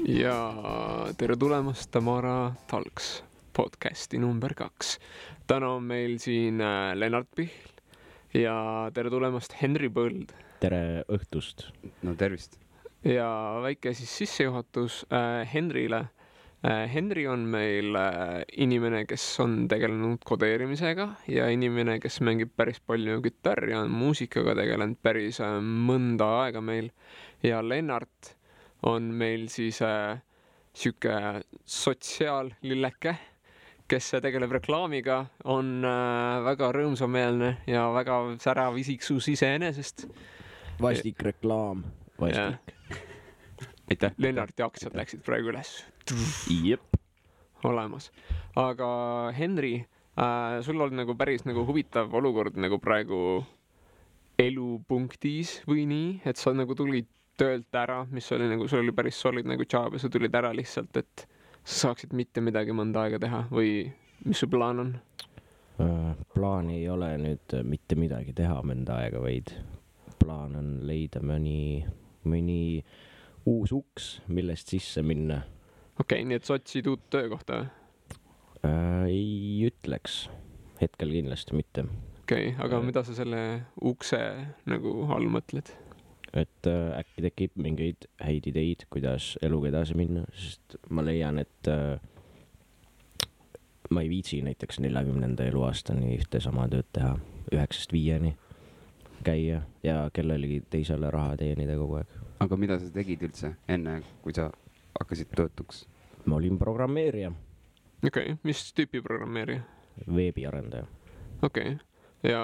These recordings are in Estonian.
Ja tere tulemast Tamara Talks podcasti number 2. Täna on meil siin Lennart Pihl ja tere tulemast Henri Põld. Tere õhtust. No tervist. Ja väike siis sissejuhatus Henrile. Henri on meil inimene, kes on tegelenud kodeerimisega ja inimene, kes mängib päris palju kitarri ja on muusikaga tegelenud päris mõnda aega meil. Ja Lennart on meil siis siuke sotsiaallilleke, kes tegeleb reklaamiga, on väga rõõmsameelne ja väga särav isiksus iseenesest. Vastik reklaam. Vastik. Aitäh. Lennarti aktsiad läksid praegu üles. Jep. Olemas. Aga Henri, sul on nagu päris nagu huvitav olukord nagu praegu elupunktis või nii, et sa nagu tulid töölt ära, mis oli nagu, sul oli päris solid nagu job ja sa tulid ära lihtsalt, et sa saaksid mitte midagi mõnda aega teha või mis su plaan on? Plaan ei ole nüüd mitte midagi teha mõnda aega, vaid plaan on leida mõni uus uks, millest sisse minna. Okei, nii et sa otsid uut töökohta või? Ei ütleks. Hetkel kindlasti mitte. Okei, aga mida sa selle ukse nagu all mõtled? Et äkki tekib mingeid häid ideid, kuidas eluga edasi minna, sest ma leian, et ma ei viitsi näiteks 40. eluaastani ühte sama tööd teha, 9-5 käia ja kellelegi teisele raha teenida kogu aeg. Aga mida sa tegid üldse enne, kui sa hakkasid töötuks? Ma olin programmeerija. Okei, mis tüüpi programmeerija? Veebiarendaja. Okei, ja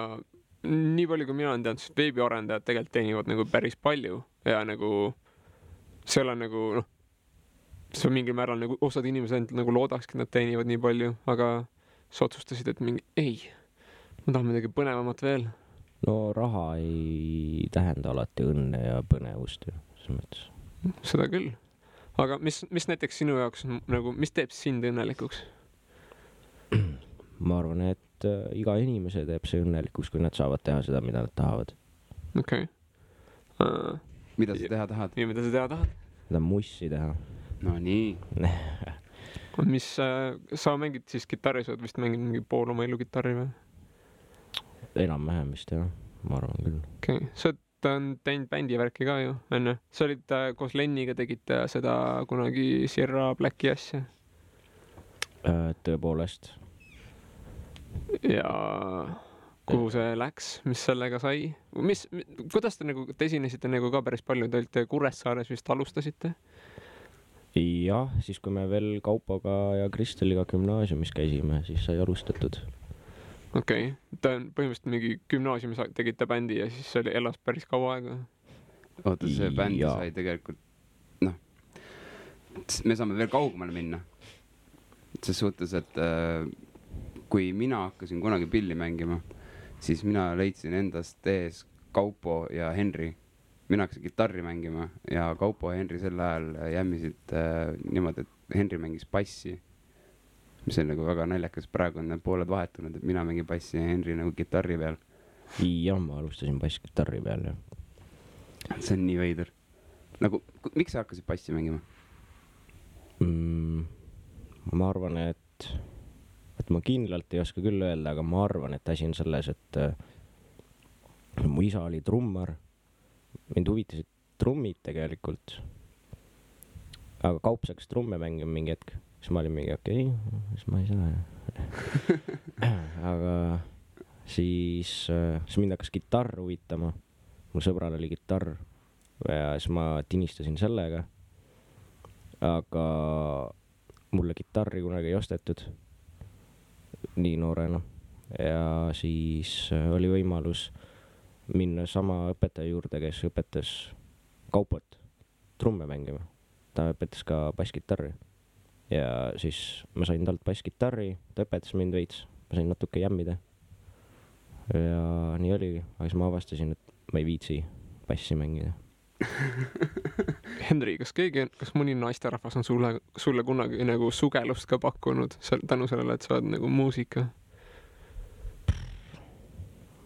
nii palju, kui mina olen teadnud, siis veebiarendajad tegelikult teenivad nagu päris palju ja nagu seal on nagu see on mingil määral nagu osad inimesed nagu loodakski, nad teenivad nii palju, aga sa otsustasid, et mingi ei, ma tahan midagi põnevamat veel. No raha ei tähenda alati õnne ja põnevust ju, selles mõttes. Seda küll. Aga mis näiteks sinu jaoks nagu, mis teeb sind õnnelikuks? Ma arvan, et iga inimese teeb see õnnelikuks, kui nad saavad teha seda, mida nad tahavad. Okei. Mida sa teha tahad? Ja mida sa teha tahad? Seda mussi teha. No nii. Mis sa mängid siis kitarri, sa oled vist mängid mingi pool oma elu kitarri või? Enam-vähem vist jah, ma arvan küll. Okei, sa oled teinud bändi värki ka ju, enne. Sa olid koos Lenniga tegite seda kunagi Sierra Blacki asja. Tõepoolest. Ja kuhu see läks, mis sellega sai? Kuidas te esinesite nagu ka päris palju, te olite Kuressaares vist alustasite? Jah, siis kui me veel Kaupoga ja Kristeliga gümnaasiumis käisime, siis sai alustatud. Okei, ta on põhimõtteliselt mingi gümnaasiumis tegite bändi ja siis see elas päris kaua aega. Oota, see bändi sai tegelikult, me saame veel kaugemale minna. See suhtes, et kui mina hakkasin kunagi pilli mängima, siis mina leidsin endast ees Kaupo ja Henri. Mina hakkasin kitarri mängima ja Kaupo ja Henri sel ajal jämmisid niimoodi, et Henri mängis bassi, mis on nagu väga naljakas. Praegu on need pooled vahetunud, et mina mängin bassi ja Henri nagu kitarri peal. Ja ma alustasin bass-kitarri peal, jah. See on nii veider. Nagu, miks sa hakkasid bassi mängima? Ma arvan, et ma kindlalt ei oska küll öelda, aga ma arvan, et asi on selles, et mu isa oli trummar. Mind huvitasid trummid tegelikult. Aga Kaups hakkas trumme mängima mingi hetk. Siis ma olin mingi okei, siis ma ei saa. Aga siis mind hakkas kitarr huvitama. Mul sõbral oli kitarr ja siis ma tinistasin sellega. Aga mulle kitarri kunagi ei ostetud nii noorena. Ja siis oli võimalus minna sama õpetaja juurde, kes õpetas Kaupot trumme mängima. Ta õpetas ka basskitarri. Ja siis ma sain talt basskitarri, ta õpetas mind veits. Ma sain natuke jämmida. Ja nii oligi. Aga siis ma avastasin, et ma ei viitsi bassi mängida. Henri, kas mõni naisterahvas on sulle kunagi nagu sugelust ka pakkunud tänu sellele, et sa oled nagu muusika?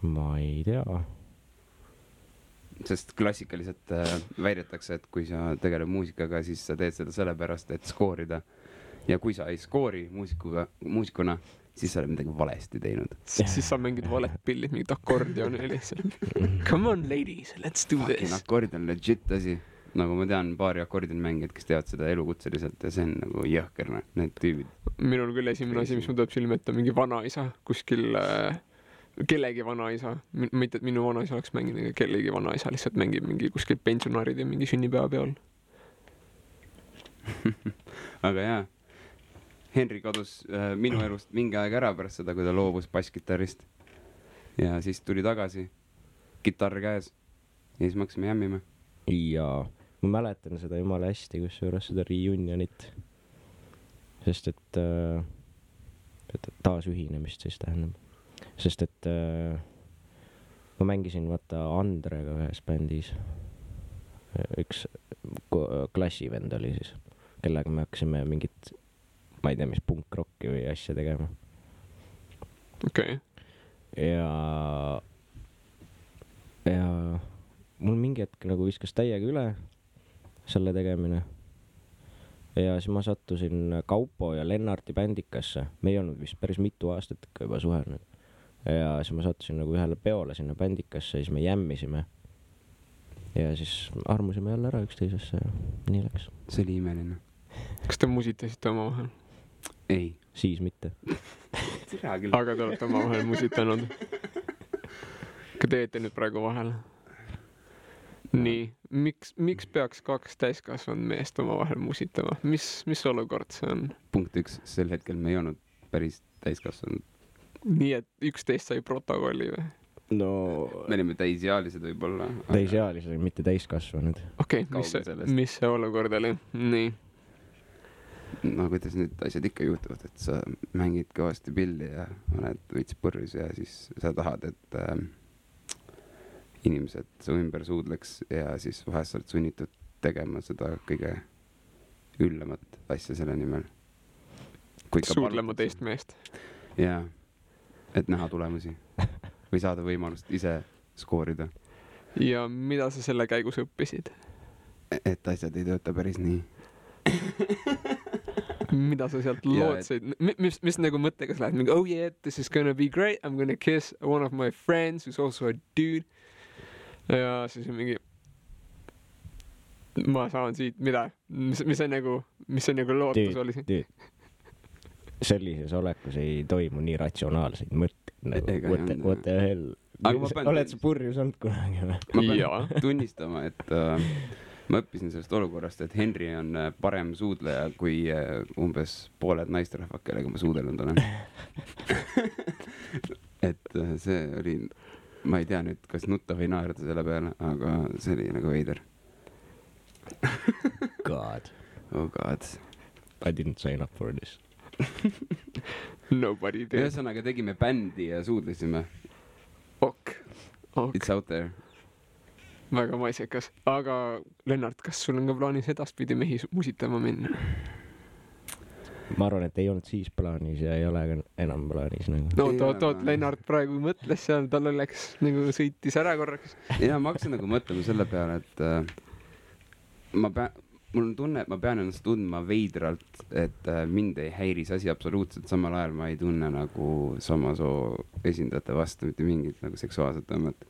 Ma ei tea. sest klassikaliselt väidetakse, et kui sa tegeled muusikaga, siis sa teed seda sellepärast, et skoorida. Ja kui sa ei skoori muusikuna, siis sa oled midagi valesti teinud. Siis sa mängid valet pillid, mingid akordioni lihtsalt. Come on, ladies, let's do this. Akord on legit asi. Nagu ma tean paari akordin mängijad, kes teavad seda elukutseliselt ja see on nagu jõhker, need tüübid. Minul küll esimene asi, mis ma tuleb silme ette, mingi vanaisa kuskil, kellegi vanaisa. Mitte, et minu vanaisa oleks mänginud, kellegi vanaisa lihtsalt mängib mingi kuskil pensionaarid ja mingi sünnipäeva peal. Aga jaa. Henri kadus minu elust mingi aeg ära pärast seda, kui ta loobus basskitarrist. Ja siis tuli tagasi, kitarr käes. Ja siis me hakkasime jämmima. Ja ma mäletan seda jumala hästi, kus juures seda reunionit. Sest et taasühinemist siis tähendab. Sest et ma mängisin vaata Andrega ühes bändis. Üks klassivend oli siis, kellega me hakkasime mingit ma ei tea, mis punkrocki või asja tegema. Okei. Ja mul mingi hetk nagu viskas täiega üle selle tegemine. Ja siis ma sattusin Kaupo ja Lennarti bändikasse. Me ei olnud vist päris mitu aastat ikka juba suhelnud. Ja siis ma sattusin nagu ühele peole sinna bändikasse ja siis me jämmisime. Ja siis armusime jälle ära üksteisesse ja nii läks. See oli imeline. Kas te musitasite oma vahel? Ei. Siis mitte. Aga te olete oma vahel musitanud. Ka teete nüüd praegu vahel. Nii, miks peaks kaks täiskasvanud meest oma vahel musitama? Mis olukord see on? Punkt 1, sel hetkel me ei olnud päris täiskasvanud. Nii, et 11 sai protokolli või? No... Me olime täisealised võib-olla. Täisealised, mitte täiskasvanud. Okei, mis see olukord oli? Nii. No kuidas nüüd asjad ikka juhtuvad, et sa mängid kõvasti pilli ja oled võits purjus ja siis sa tahad, et inimesed su ümber suudleks ja siis vahest sa oled sunnitud tegema seda kõige üllemat asja selle nimel. Suudlema teist meest. Jaa, et näha tulemusi või saada võimalust ise skoorida. Ja mida sa selle käigus õppisid? Et asjad ei tööta päris nii. Mida sa sealt lootsid? Mis nagu mõttega sa lähed? Mingi, oh yeah, this is gonna be great. I'm gonna kiss one of my friends who's also a dude. Ja siis mingi ma saan siit, mida? Mis see nagu lootus oli? Sellises olekus ei toimu nii ratsionaalseid mõtteid. What the hell? Oled sa purjus olnud kunagi? Ma pean tunnistama, et ma õppisin sellest olukorrast, et Henri on parem suudleja kui umbes pooled naisterahvad, kellega ma suudelnud olen. Et see oli, ma ei tea nüüd, kas nutta või naerda selle peale, aga see oli nagu veider. God. Oh God. I didn't sign up for this. Nobody did. Ühesõnaga tegime bändi ja suudlesime. Ok. It's out there. Väga maisekas. Aga Lennart, kas sul on ka plaanis edaspidi mehi musitama minna? Ma arvan, et ei olnud siis plaanis ja ei ole enam plaanis. Nagu. No toot, Lennart praegu mõtles seal, tal oleks nagu sõitis ära korraks. Ja ma hakkasin nagu mõtlema selle peale, et mul on tunne, et ma pean ennast tundma veidralt, et mind ei häiris asi absoluutselt. Samal ajal ma ei tunne nagu sama soo esindajate vastu mitte mingit nagu seksuaalset tõmmet.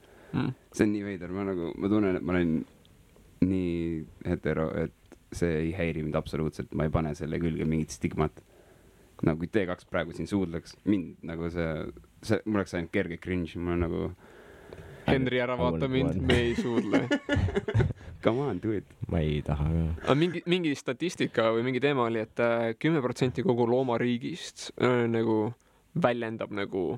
See on nii veider, ma tunnen, et ma olen nii hetero, et see ei häiri mind absoluutselt, ma ei pane selle külge mingit stigmat. Nagu kui T2 praegu siin suudleks, mind nagu see mul oleks ainult kerge cringe, mul on nagu Henri, ära vaata mind, me ei suudle. Come on, do it. Ma ei taha ka. Mingi statistika või mingi teema oli, et 10% kogu loomariigist nagu väljendab nagu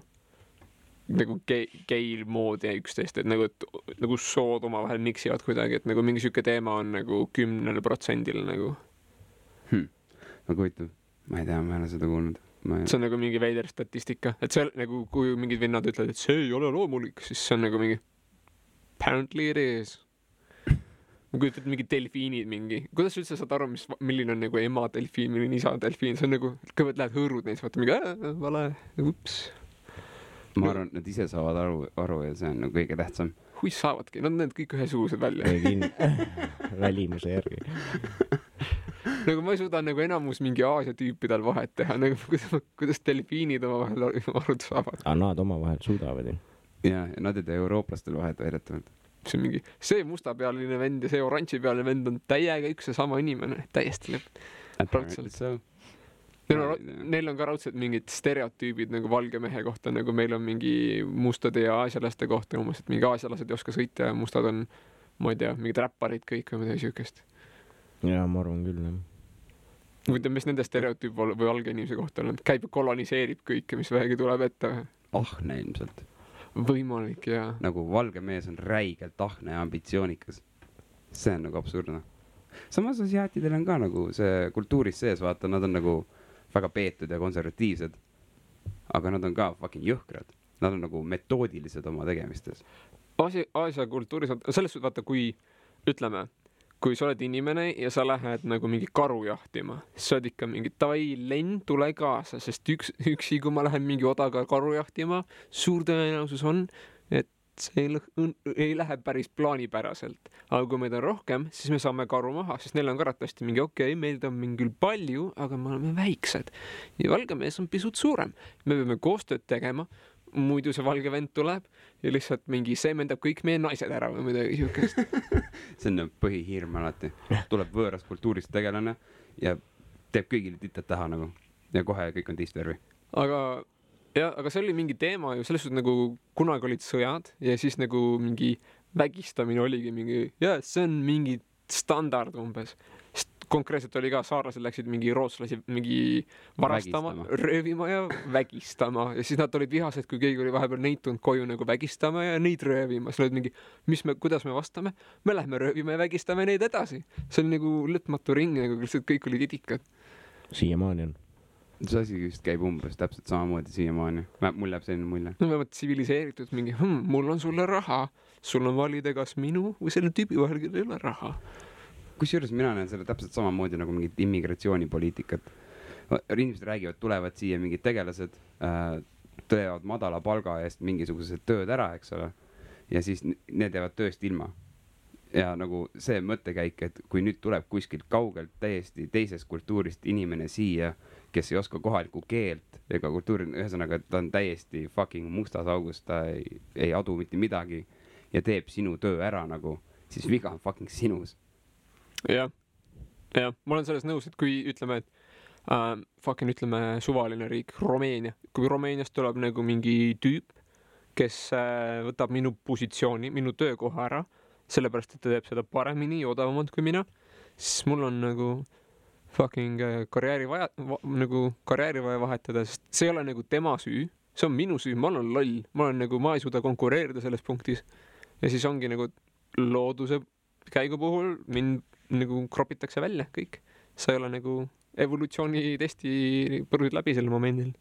geil moodi üksteist, et nagu sood omavahel miksivad kuidagi, et nagu mingi süke teema on nagu 10% nagu. Nagu huvitav, ma ei tea, ma ei ole seda kuulnud. See on nagu mingi veider statistika, et see nagu, kui mingid vennad ütlevad, et see ei ole loomulik, siis see on nagu mingi apparently it is. Ma kujutan mingi delfiinid mingi. Kuidas üldse saad aru, milline on nagu ema delfiin, milline isa delfiin? See on nagu, kõigepealt lähed hõõrud neist, vaata mingi, vale, ups. Ma arvan, et nad ise saavad aru ja see on nagu kõige tähtsam. saavadki, nad näevad kõik ühesugused välja. Välimuse järgi. Nagu ma ei suuda nagu enamus mingi Aasia tüüpidel vahet teha, nagu kuidas delfiinid omavahel aru saavad. Nad omavahel suudavad ju. Ja nad ei tee eurooplastel vahet väidetavalt. See on mingi, see mustapealine vend ja see oranžipealine vend on täiega üks ja sama inimene, täiesti raudselt. Neil on ka raudselt mingid stereotüübid nagu valge mehe kohta, nagu meil on mingi mustade ja aasialaste kohta umbes, et mingi aasialased ei oska sõita ja mustad on, ma ei tea, mingid räpparid kõik või midagi siukest. Ja ma arvan küll, jah. Võitleme, mis nende stereotüüp või valge inimese kohta on, käib ja koloniseerib kõike, mis vähegi tuleb ette. Ahne ilmselt. Võimalik, jaa. Nagu valge mees on räigelt ahne ja ambitsioonikas. See on nagu absurdne. Samas asiaatidel on ka nagu see kultuuris sees, vaata, nad on nagu väga peetud ja konservatiivsed. Aga nad on ka fucking jõhkrad. Nad on nagu metoodilised oma tegemistes. Aasia kultuuris, selles suhtes vaata, kui ütleme, kui sa oled inimene ja sa lähed nagu mingi karu jahtima, siis sa oled ikka mingi lend, tule kaasa, sest üksi, kui ma lähen mingi odaga karu jahtima, suur tõenäosus on, et see ei lähe päris plaanipäraselt. Aga kui meid on rohkem, siis me saame karu maha, sest neil on karatasti mingi meid on mingi palju, aga me oleme väiksed. Ja valge mees on pisut suurem. Me peame koostööd tegema, muidu see valge vend tuleb ja lihtsalt mingi seemendab kõik meie naised ära või midagi siukest. See on põhihirm alati. Tuleb võõrast kultuurist tegelane ja teeb kõigile titad taha nagu. Ja kohe kõik on teist värvi. Aga see oli mingi teema ju, selles suhtes nagu kunagi olid sõjad ja siis nagu mingi vägistamine oligi mingi, see on mingi standard umbes. Konkreetselt oli ka, saarlased läksid mingi rootslasi mingi varastama, röövima ja vägistama. Ja siis nad olid vihased, kui keegi oli vahepeal neid tulnud koju nagu vägistama ja neid röövima. Siis olid mingi, kuidas me vastame? Me lähme röövima ja vägistame neid edasi. See oli nagu lõtmatu ring, nagu kõik olid idikad. Siiamaani on. See asi just käib umbes täpselt samamoodi siiamaani. Mul jääb selline mulje. No vähemalt tsiviliseeritud mingi, mul on sulle raha. Sul on valida kas minu või selle tüübi vahel, kellel ei ole raha. Kusjuures mina näen selle täpselt samamoodi nagu mingit immigratsioonipoliitikat. Inimesed räägivad, tulevad siia mingid tegelased, tõevad madala palga eest mingisugused tööd ära, eks ole. Ja siis need jäävad tööst ilma. Ja nagu see mõttekäik, et kui nüüd tuleb kuskilt kaugelt täiesti teisest kultuurist inimene siia, kes ei oska kohalikku keelt ega kultuuri, ühesõnaga, et ta on täiesti fucking mustas augus, ta ei adu mitte midagi ja teeb sinu töö ära nagu, siis viga on fucking sinus. Jah, ma olen selles nõus, et kui ütleme, et ütleme suvaline riik, Rumeenia, kui Rumeeniast tuleb nagu mingi tüüp, kes võtab minu positsiooni, minu töökoha ära, sellepärast, et ta teeb seda paremini ja odavamalt kui mina, siis mul on nagu fucking karjääri vaja vahetada, sest see ei ole nagu tema süü, see on minu süü, ma olen loll, ma ei suuda konkureerida selles punktis ja siis ongi nagu looduse käigu puhul mind nagu kropitakse välja kõik. Sa ei ole nagu evolutsiooni testi põrusid läbi sel momendil.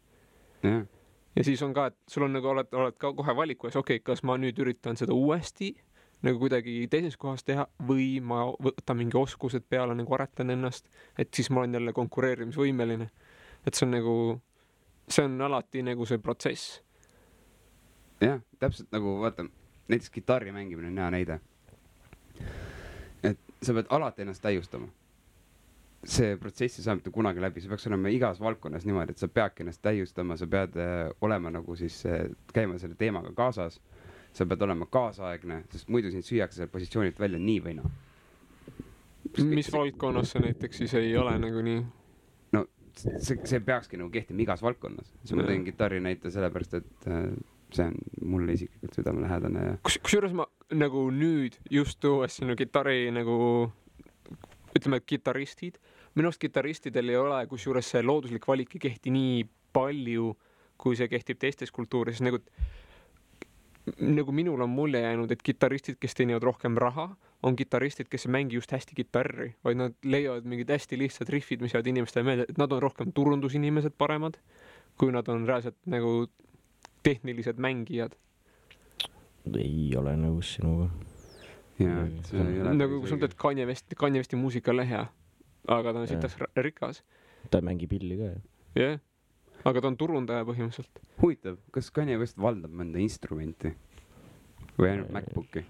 Ja siis on ka, et sul on nagu oled ka kohe valiku ees, kas ma nüüd üritan seda uuesti nagu kuidagi teises kohas teha või ma võtan mingi oskused peale, nagu aretan ennast, et siis ma olen jälle konkureerimisvõimeline. Et see on alati nagu see protsess. Jah, täpselt nagu, vaata, näiteks kitarri mängimine on hea näide. Et sa pead alati ennast täiustama. See protsessi saab mitte kunagi läbi, see peaks olema igas valdkonnas niimoodi, et sa peadki ennast täiustama, sa pead olema nagu siis käima selle teemaga kaasas, sa pead olema kaasaegne, sest muidu sind süüakse selle positsioonilt välja nii või naa. Mis valdkonnas see näiteks siis ei ole nagu nii? No see peakski nagu kehtima igas valdkonnas. Ma teen kitarri näite sellepärast, et see on mulle isiklikult südamelähedane. Kusjuures ma nagu nüüd just tuues sinu kitarri nagu, ütleme, kitarristid. Minu arust kitarristidel ei ole, kusjuures see looduslik valik ei kehti nii palju, kui see kehtib teistes kultuuris. Nagu minul on mulje jäänud, et kitarristid, kes teenivad rohkem raha, on kitarristid, kes ei mängi just hästi kitarri, vaid nad leiavad mingid hästi lihtsad riffid, mis jäävad inimestele meelde, et nad on rohkem turundusinimesed paremad, kui nad on reaalselt nagu tehnilised mängijad. Ei ole nõus sinuga. Nagu kui sul teed Kanye Westi muusika lehe, aga ta on sitas rikas. Ta mängi pilli ka, jah. Aga ta on turundaja põhimõtteliselt. Huvitav, kas Kanye West valdab mõnda instrumenti? või ainult MacBooki.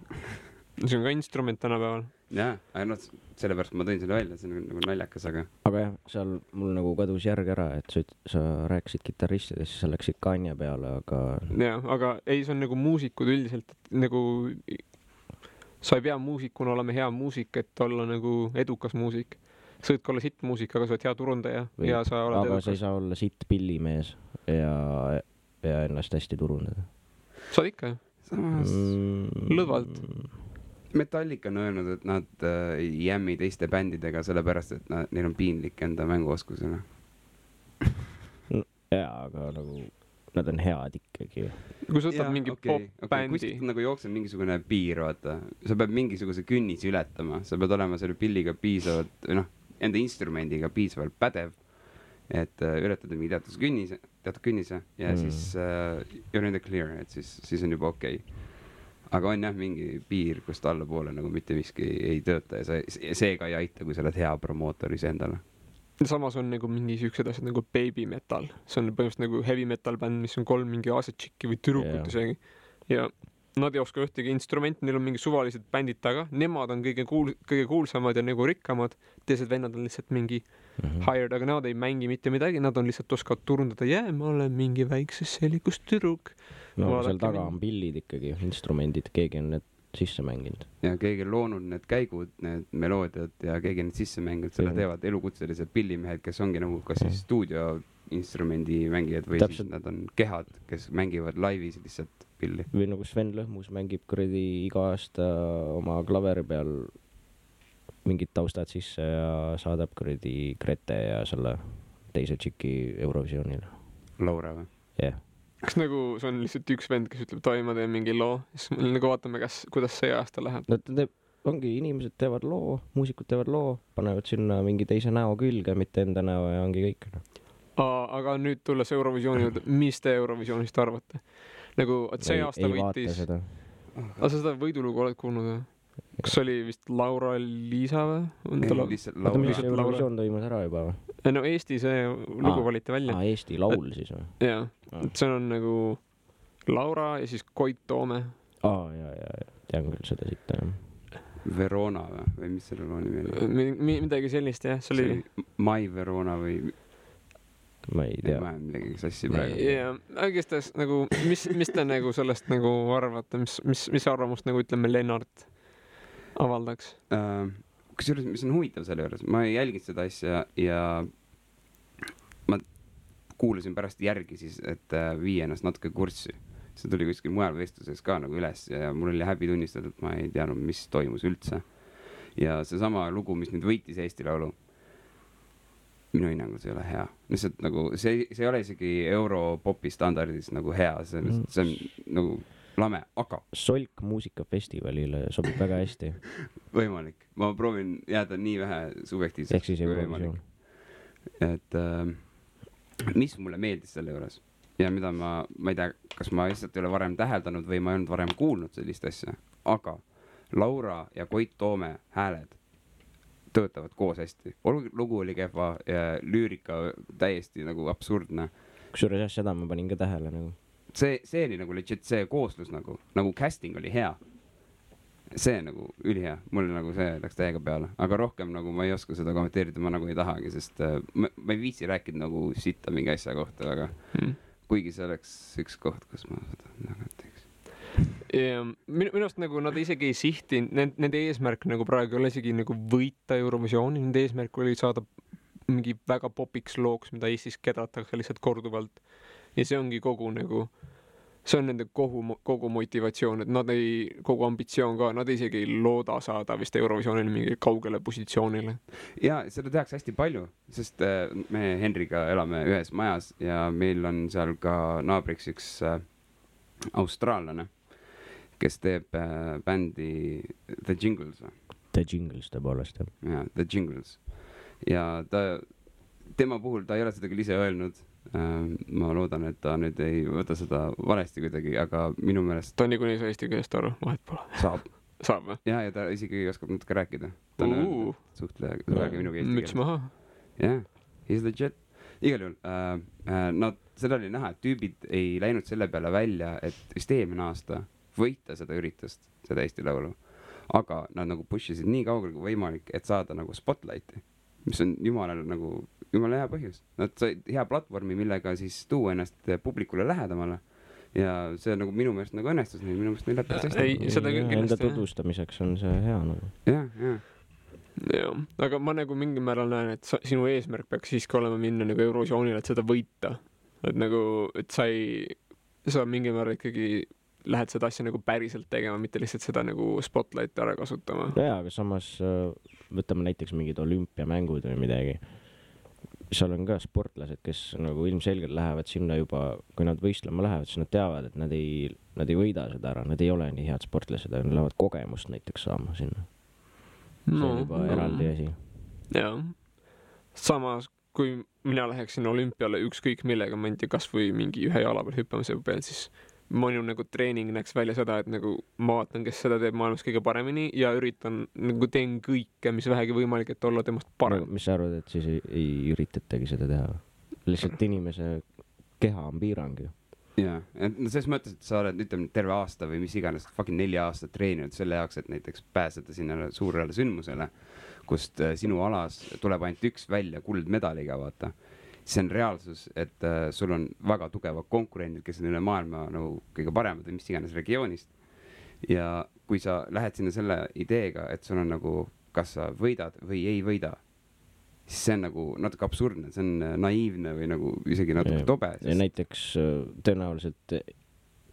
See on ka instrument tänapäeval. Jaa, aga sellepärast ma tõin selle välja, see on nagu naljakas, aga jah, seal mul nagu kadus järg ära, et sa rääkisid kitarristidest, siis sa läksid Kanye peale, aga jah, aga ei, see on nagu muusikud üldiselt, et nagu sa ei pea muusikuna olema hea muusik, et olla nagu edukas muusik. Sa võid ka olla sitt muusik, aga sa oled hea turundaja ja sa oled aga edukas. sa ei saa olla sitt pillimees ja ennast hästi turundada. Saad ikka, samas lõdvalt. Metallica on öelnud, et nad ei jämmi teiste bändidega sellepärast, et neil on piinlik enda mänguoskusena. Jaa, aga nagu nad on head ikkagi. Kui sa võtad mingi pop-bändi. Kuskilt nagu jookseb mingisugune piir, vaata. Sa pead mingisuguse künnisi ületama. Sa pead olema selle pilliga piisavalt, enda instrumendiga piisavalt pädev, et ületada mingi teatud künnise ja siis you're in the clear, et siis on juba okei. Aga on jah mingi piir, kust allapoole nagu mitte miski ei tööta ja seega ei aita, kui sa oled hea promootoris endale. Samas on nagu mingi siuksed asjad nagu baby metal. See on põhimõtteliselt nagu heavy metal bänd, mis on 3 mingi asetšikki või tüdrukut isegi. Ja nad ei oska ühtegi instrumenti, neil on mingi suvalised bändid taga. Nemad on kõige kuulsamad ja nagu rikkamad. Teised vennad on lihtsalt mingi hired, aga nad ei mängi mitte midagi. Nad on lihtsalt oskavad turundada. Ma olen mingi väikses sellikus tüdruk. No seal taga on pillid ikkagi, instrumendid, keegi on need sisse mänginud. Ja keegi on loonud need käigud, need meloodiad ja keegi on need sisse mänginud. Selle teevad elukutselised pillimehed, kes ongi nagu kas siis stuudioinstrumendi mängijad või siis nad on kehad, kes mängivad laivis lihtsalt pilli. Või nagu Sven Lõhmus mängib kuradi iga aasta oma klaveri peal mingid taustad sisse ja saadab kuradi Grete ja selle teise tšiki Eurovisioonile. Laura või? Jah. Kas nagu see on lihtsalt üks vend, kes ütleb, ma teen mingi loo, siis me nagu vaatame, kuidas see aasta läheb. Ongi, inimesed teevad loo, muusikud teevad loo, panevad sinna mingi teise näo külge, mitte enda näo ja ongi kõik. Aga nüüd tulles Eurovisiooni juurde, mis te Eurovisioonist arvate? Nagu, et see aasta võitis. Aga sa seda võidulugu oled kuulnud või? Kas oli vist Laura-Liisa või? Eurovisioon toimus ära juba või? No Eesti see lugu valiti välja. Eesti laul siis või? Jaa, see on nagu Laura ja siis Koit Toome. Tean küll seda siit. Verona või mis selle loo nimi oli? Midagi sellist, jah. See oli Mai Verona või? Ma ei tea. Ma midagi sassi praegu. Jaa, õigestes nagu, mis te nagu sellest nagu arvate? Mis arvamust nagu ütleme Lennart avaldaks? Kusjuures, mis on huvitav selle juures, ma ei jälginud seda asja ja ma kuulasin pärast järgi siis, et vii ennast natuke kurssi. See tuli kuskil mujal vestluses ka nagu üles ja mul oli häbi tunnistada, et ma ei teadnud, mis toimus üldse. Ja see sama lugu, mis nüüd võitis Eesti Laulu, minu hinnangul see ei ole hea. Lihtsalt nagu, see ei ole isegi Europopi standardis nagu hea, see on nagu lame, aga Solk muusikafestivalile sobib väga hästi. Võimalik. Ma proovin jääda nii vähe subjektiivseks kui võimalik. Et mis mulle meeldis selle juures ja mida ma ei tea, kas ma lihtsalt ei ole varem täheldanud või ma ei olnud varem kuulnud sellist asja, aga Laura ja Koit Toome hääled töötavad koos hästi. Lugu oli kehva ja lüürika täiesti nagu absurdne. Kusjuures jah, seda ma panin ka tähele nagu. See oli nagu legit see kooslus nagu casting oli hea. See nagu ülihea. Mulle nagu see läks täiega peale. Aga rohkem nagu ma ei oska seda kommenteerida, ma nagu ei tahagi, sest ma ei viitsi rääkida nagu sitta mingi asja kohta, aga kuigi see oleks üks koht, kus ma seda nagu teeks. Minu arust nagu nad isegi ei sihti, nende eesmärk nagu praegu ei ole isegi nagu võita Eurovisiooni, nende eesmärk oli saada mingi väga popiks looks, mida Eestis kedratakse lihtsalt korduvalt. Ja see ongi kogu nagu, see on nende kogu motivatsioon, et nad ei, kogu ambitsioon ka, nad isegi ei looda saada vist Eurovisioonil mingi kaugele positsioonile. Ja seda tehakse hästi palju, sest me Henriga elame ühes majas ja meil on seal ka naabriks üks austraallane, kes teeb bändi The Jingles. The Jingles tõepoolest, jah. Ja, The Jingles. Ja tema puhul ta ei ole seda küll ise öelnud. Ma loodan, et ta nüüd ei võta seda valesti kuidagi, aga minu meelest ta niikuinii saa eesti keelest aru, vahet pole. Saab või? Ja ta isegi oskab natuke rääkida. Ta on öelnud, et suhtlega minuga eesti keeles. Müts maha. Jah, he's legit. Igal juhul, seda oli näha, et tüübid ei läinud selle peale välja, et vist eelmine aasta võita seda üritust, seda Eesti Laulu. Aga nad nagu push isid nii kaugele kui võimalik, et saada nagu spotlighti, mis on jumala hea põhjus. Nad said hea platvormi, millega siis tuua ennast publikule lähedamale. Ja see nagu minu meelest nagu õnnestus neil, minu meelest neil läbi hästi. Ei, seda küll kindlasti. Enda tutvustamiseks on see hea nagu. Jah, aga ma nagu mingil määral näen, et sinu eesmärk peaks siiski olema minna nagu Eurovisioonile, et seda võita. Et nagu, et sa mingil määral ikkagi lähed seda asja nagu päriselt tegema, mitte lihtsalt seda nagu spotlighti ära kasutama. Jaa, aga samas võtame näiteks mingid olümpiamängud või midagi. Seal on ka sportlased, kes nagu ilmselgelt lähevad sinna juba, kui nad võistlema lähevad, siis nad teavad, et nad ei võida seda ära, nad ei ole nii head sportlased, nad lähevad kogemust näiteks saama sinna. See on juba eraldi asi. Jah. Samas, kui mina läheksin olümpiale ükskõik millega, ma ei tea, kas või mingi ühe jala peal hüppamise peal, siis minu nagu treening näeks välja seda, et nagu ma vaatan, kes seda teeb maailmas kõige paremini ja üritan, nagu teen kõike, mis vähegi võimalik, et olla temast parem. Mis sa arvad, et siis ei üritatagi seda teha? Lihtsalt inimese keha on piirang ju. Jaa, selles mõttes, et sa oled ütleme terve aasta või mis iganes fucking 4 aastat treeninud selle jaoks, et näiteks pääseda sinna suurele sündmusele, kust sinu alas tuleb ainult üks välja kuldmedaliga, vaata. See on reaalsus, et sul on väga tugevad konkurendid, kes on üle maailma nagu kõige paremad või mis iganes regioonist. Ja kui sa lähed sinna selle ideega, et sul on nagu, kas sa võidad või ei võida, siis see on nagu natuke absurdne, see on naiivne või nagu isegi natuke tobe. Ja näiteks tõenäoliselt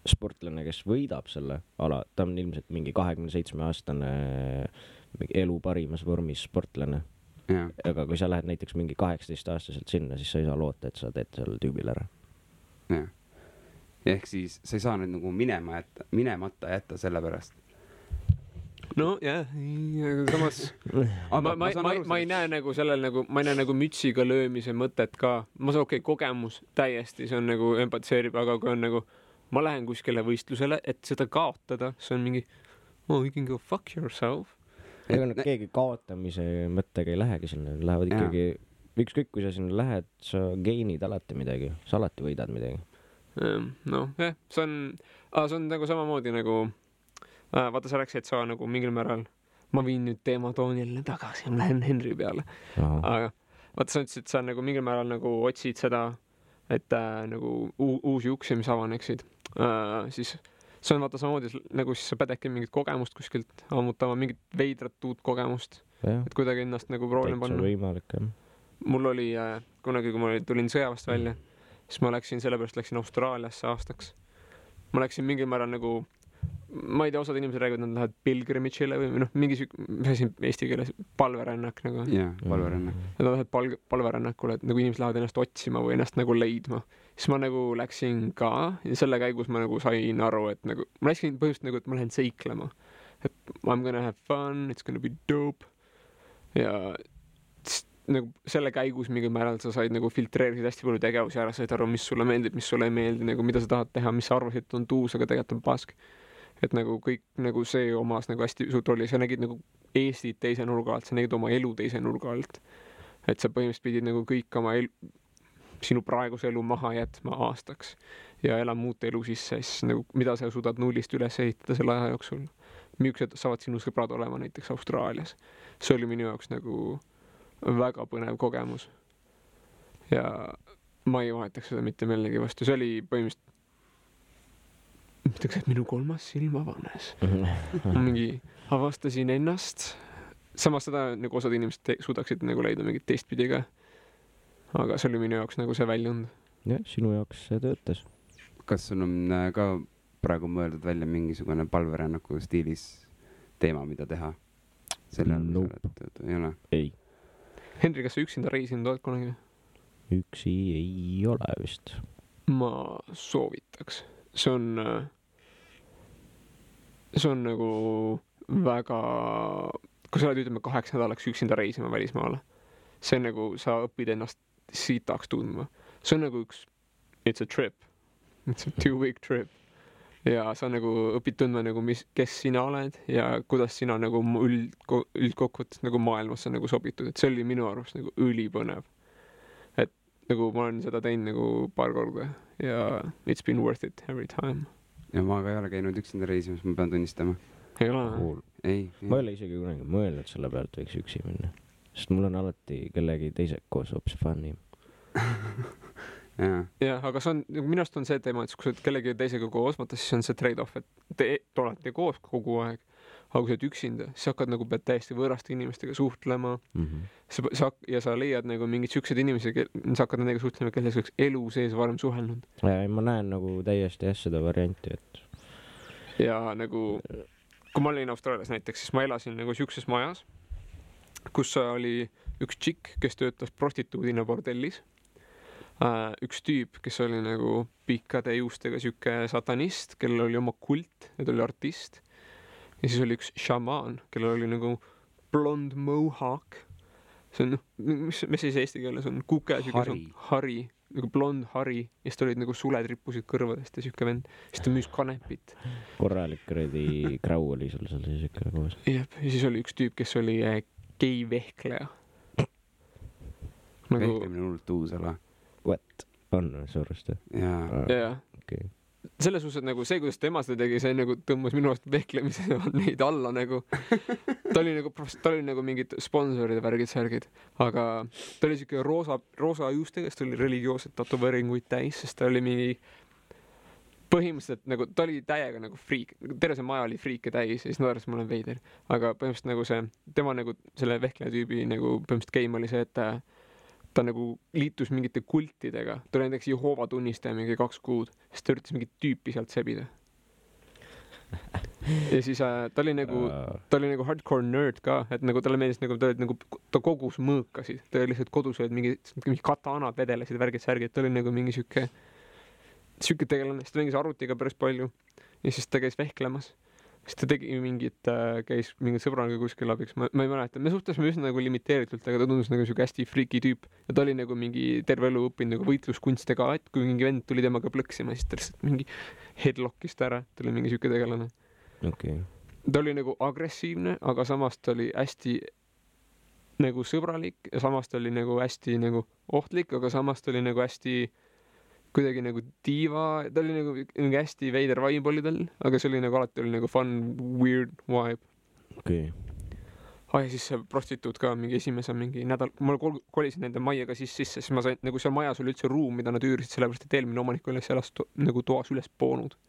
sportlane, kes võidab selle ala, ta on ilmselt mingi 27-aastane elu parimas vormis sportlane. Ja. Aga kui sa lähed näiteks mingi 18-aastaselt sinna, siis sa ei saa loota, et sa teed seal tüübil ära. Ja. Ehk siis sa ei saa nüüd nagu minemata jätta selle pärast. No jah, samas ma ei näe nagu sellel nagu, ma ei näe nagu mütsiga löömise mõtet ka. Ma saan kogemus täiesti, see on nagu empatiseerib, aga kui on nagu, ma lähen kuskile võistlusele, et seda kaotada, see on mingi, you can go fuck yourself. Ega keegi kaotamise mõttega ei lähegi sinna, lähevad ikkagi, ükskõik kui sa sinna lähed, sa geinid alati midagi, sa alati võidad midagi. No, see on nagu samamoodi nagu, vaata sa rääksid, et sa nagu mingil määral, ma viin nüüd teema toonile tagasi, ma lähen Henri peale. Aga vaata sa ütlesid, et sa nagu mingil määral nagu otsid seda, et nagu uusi uksi, mis avaneksid, siis see on vaata samamoodi, nagu siis sa pededki mingit kogemust kuskilt ammutama, mingit veidrat uut kogemust, et kuidagi ennast nagu proovima panna. Täitsa võimalik, jah. Mul oli kunagi, kui ma tulin sõjavast välja, siis ma läksin Austraaliasse aastaks. Ma läksin mingil määral nagu, ma ei tea, osad inimesed räägivad, nad lähevad pilgrimitšile või mingi eesti keeles palverännak nagu. Jah, palverännak. Nad lähevad palverännakule, et nagu inimesed lähevad ennast otsima või ennast nagu leidma. Siis ma nagu läksin ka ja selle käigus ma nagu sain aru, et nagu, ma läksin põhjust nagu, et ma lähen seiklema. Et I'm gonna have fun, it's gonna be dope. Ja nagu selle käigus mingil määral sa said nagu filtreerisid hästi palju tegevusi ära, said aru, mis sulle meeldib, mis sulle ei meeldi, nagu mida sa tahad teha, mis sa arvasid, et on tuus, aga tegelikult on pask. Et nagu kõik nagu see omas nagu hästi suurt rolli, sa nägid nagu Eestit teise nurga alt, sa nägid oma elu teise nurga alt. Et sa põhimõtteliselt pidid nagu kõik oma sinu praeguse elu maha jätma aastaks ja elama muud elu sisse, siis nagu mida sa suudad nullist üles ehitada selle aja jooksul. Millised saavad sinu sõbrad olema näiteks Austraalias. See oli minu jaoks nagu väga põnev kogemus. Ja ma ei vahetaks seda mitte millegi vastu. See oli põhimõtteliselt ütleks, et minu 3. silm avanes. Mingi avastasin ennast. Samas seda nagu osad inimesed suudaksid nagu leida mingit teistpidi ka. Aga see oli minu jaoks nagu see väljund. Jah, sinu jaoks see töötas. Kas sul on ka praegu mõeldud välja mingisugune palverännaku stiilis teema, mida teha? Nope. Ei ole? Ei. Henri, kas sa üksinda reisinud oled kunagi? Üksi ei ole vist. Ma soovitaks. See on nagu väga, kui sa oled ütleme 8 nädalaks üksinda reisima välismaale, see on nagu, sa õpid ennast sitaks tundma. See on nagu it's a trip. It's a 2-week trip. Ja sa nagu õpid tundma nagu, kes sina oled ja kuidas sina nagu üldkokkuvõttes nagu maailmasse nagu sobitud. Et see oli minu arust nagu ülipõnev. Et nagu ma olen seda teinud nagu paar korda ja it's been worth it every time. ja ma ka ei ole käinud üksinda reisimas, ma pean tunnistama. Ei ole? Cool. Ei. Ma ei ole isegi kunagi mõelnud selle pealt, võiks üksi minna. Sest mul on alati kellegi teise koos hoopis funnim. Jah, aga see on, minu arust on see teema, et kui sa oled kellegi teisega koos, vaata siis on see trade-off, et te olete koos kogu aeg, aga kui sa oled üksinda, siis hakkad nagu pead täiesti võõraste inimestega suhtlema. Ja sa leiad nagu mingid siuksed inimesi, sa hakkad nendega suhtlema, kelles oleks elu sees varem suhelnud. Ja ma näen nagu täiesti seda varianti, et... Ja nagu, kui ma olin Austraalias näiteks, siis ma elasin nagu siukses majas, kus oli üks tšikk, kes töötas prostituudina bordellis. Üks tüüp, kes oli nagu pikkade juustega siuke satanist, kellel oli oma kult ja ta oli artist. Ja siis oli üks šamaan, kellel oli nagu blond mohawk. See on, mis siis eesti keeles on? Kuke, hari, nagu blond hari. Ja siis ta olid nagu suled rippusid kõrvadest ja siuke vend. Siis ta müüs kanepit. Korralik kredi krau oli sul seal siuke koos. Jep, ja siis oli üks tüüp, kes oli gei vehkleja. Nagu... Vehklemine on hullult uus ala. What? On suurest? Jaa. Okay. Selles suhtes, et nagu see, kuidas tema seda tegi, see nagu tõmbas minu arust vehklemise neid alla nagu. Ta oli nagu mingid sponsoride värgid, aga ta oli siuke roosa juustega, sest ta oli religioossed tatoveeringuid täis, sest ta oli mingi põhimõtteliselt nagu, ta oli täiega nagu friik, terve see maja oli friike täis ja siis naeras ma olen veider, aga põhimõtteliselt nagu see, tema nagu selle vehkleja tüübi nagu põhimõtteliselt game oli see, et ta nagu liitus mingite kultidega. Ta oli näiteks Jehoova tunnistaja mingi 2 kuud, siis ta üritas mingit tüüpi sealt sebida. Ja siis ta oli nagu hardcore nerd ka, et nagu talle meeldis nagu, ta kogus mõõkasid. Ta oli lihtsalt kodus olid mingi katanad vedelesid, värgid, ta oli nagu mingi siuke tegelane, siis ta mängis arvutiga päris palju ja siis ta käis vehklemas. Siis ta tegi käis mingit sõbraga kuskil abiks, ma ei mäleta, me suhtlesime üsna nagu limiteeritult, aga ta tundus nagu siuke hästi freaky tüüp ja ta oli nagu mingi terve elu õppinud nagu võitluskunste ka, et kui mingi vend tuli temaga plõksima, siis ta lihtsalt mingi headlockist ära, ta oli mingi siuke tegelane. Okay. Ta oli nagu agressiivne, aga samas ta oli hästi nagu sõbralik ja samas ta oli nagu hästi nagu ohtlik, aga samas ta oli nagu hästi kuidagi nagu diiva, ta oli nagu hästi veider vibe oli tal, aga see oli nagu alati oli nagu fun, weird vibe. Okay. Ja siis see prostituut ka mingi esimese mingi nädal, ma kolisin nende majjaga sisse, siis ma sain, nagu seal majas oli üldse ruum, mida nad üürisid, sellepärast, et eelmine omanik oli elas nagu toas üles poonud.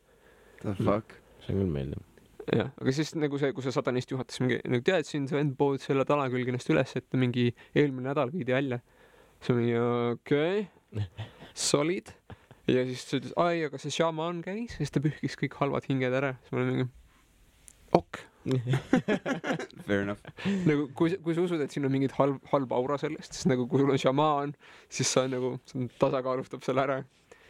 The fuck? See on küll meeldib. Jah, aga siis nagu see, kui see satanist juhatas mingi, nagu tead, siin see vend pood selle tala külg ennast üles, et mingi eelmine nädal viidi välja. See mingi, okei. Solid. Ja siis ta ütles, aga see šamaan käis, siis ta pühkis kõik halvad hinged ära. Siis ma olin mingi, ok. Fair enough. Nagu, kui sa usud, et siin on mingid halb aura sellest, siis nagu kui sul on šamaan, siis sa nagu tasakaalustab selle ära.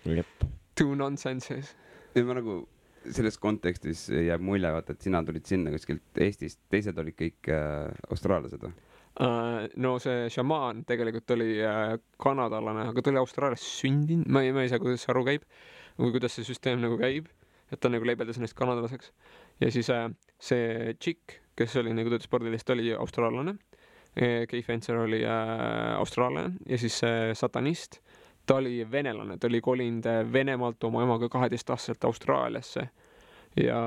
Jep. Two nonsenses. Ja ma nagu selles kontekstis jääb mulje, vaata, et sina tulid sinna kuskilt Eestist, teised olid kõik austraallased või? No see šamaan tegelikult oli kanadalane, aga ta oli Austraalias sündinud, ma ei saa, kuidas aru käib või kuidas see süsteem nagu käib, et ta nagu leibeldas ennast kanadalaseks ja siis see tšikk, kes oli nagu töötas spordilist, oli austraallane, Kay Fencer oli austraallane ja siis satanist, ta oli venelane, ta oli kolinud Venemaalt oma emaga 12-aastaselt Austraaliasse ja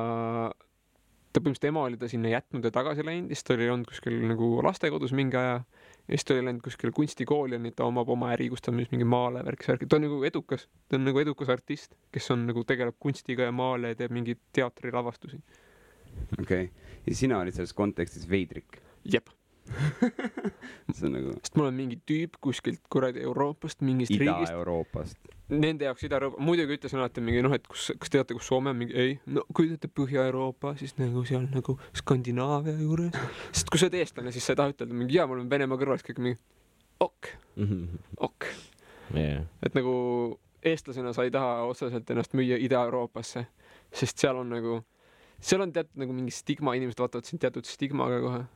ta põhimõtteliselt ema oli ta sinna jätnud ja tagasi läinud, siis ta oli olnud kuskil nagu lastekodus mingi aja ja siis ta oli läinud kuskil kunstikooli ja nüüd ta omab oma äri, kus ta müüs mingi maale värki. Ta on nagu edukas, ta on nagu edukas artist, kes on nagu tegeleb kunstiga ja maale ja teeb mingi teatrilavastusi. Okei. Ja sina olid selles kontekstis veidrik? Jep. See on nagu... Sest mul on mingi tüüp kuskilt kuradi Euroopast, mingist riigist. Ida-Euroopast. Nende jaoks Ida-Euroopa. Muidugi ütlesin alati mingi, et kas teate, kus Soome on mingi, ei. No kui teate Põhja-Euroopa, siis nagu seal nagu Skandinaavia juures. Sest kui sa oled eestlane, siis sa ei taha ütelda mingi, mul on Venemaa kõrvas kõik mingi ok. Yeah. Et nagu eestlasena sa ei taha otseselt ennast müüa Ida-Euroopasse, sest seal on nagu, seal on teatud nagu mingi stigma, inimesed vaatavad siin teatud stigmaga kohe.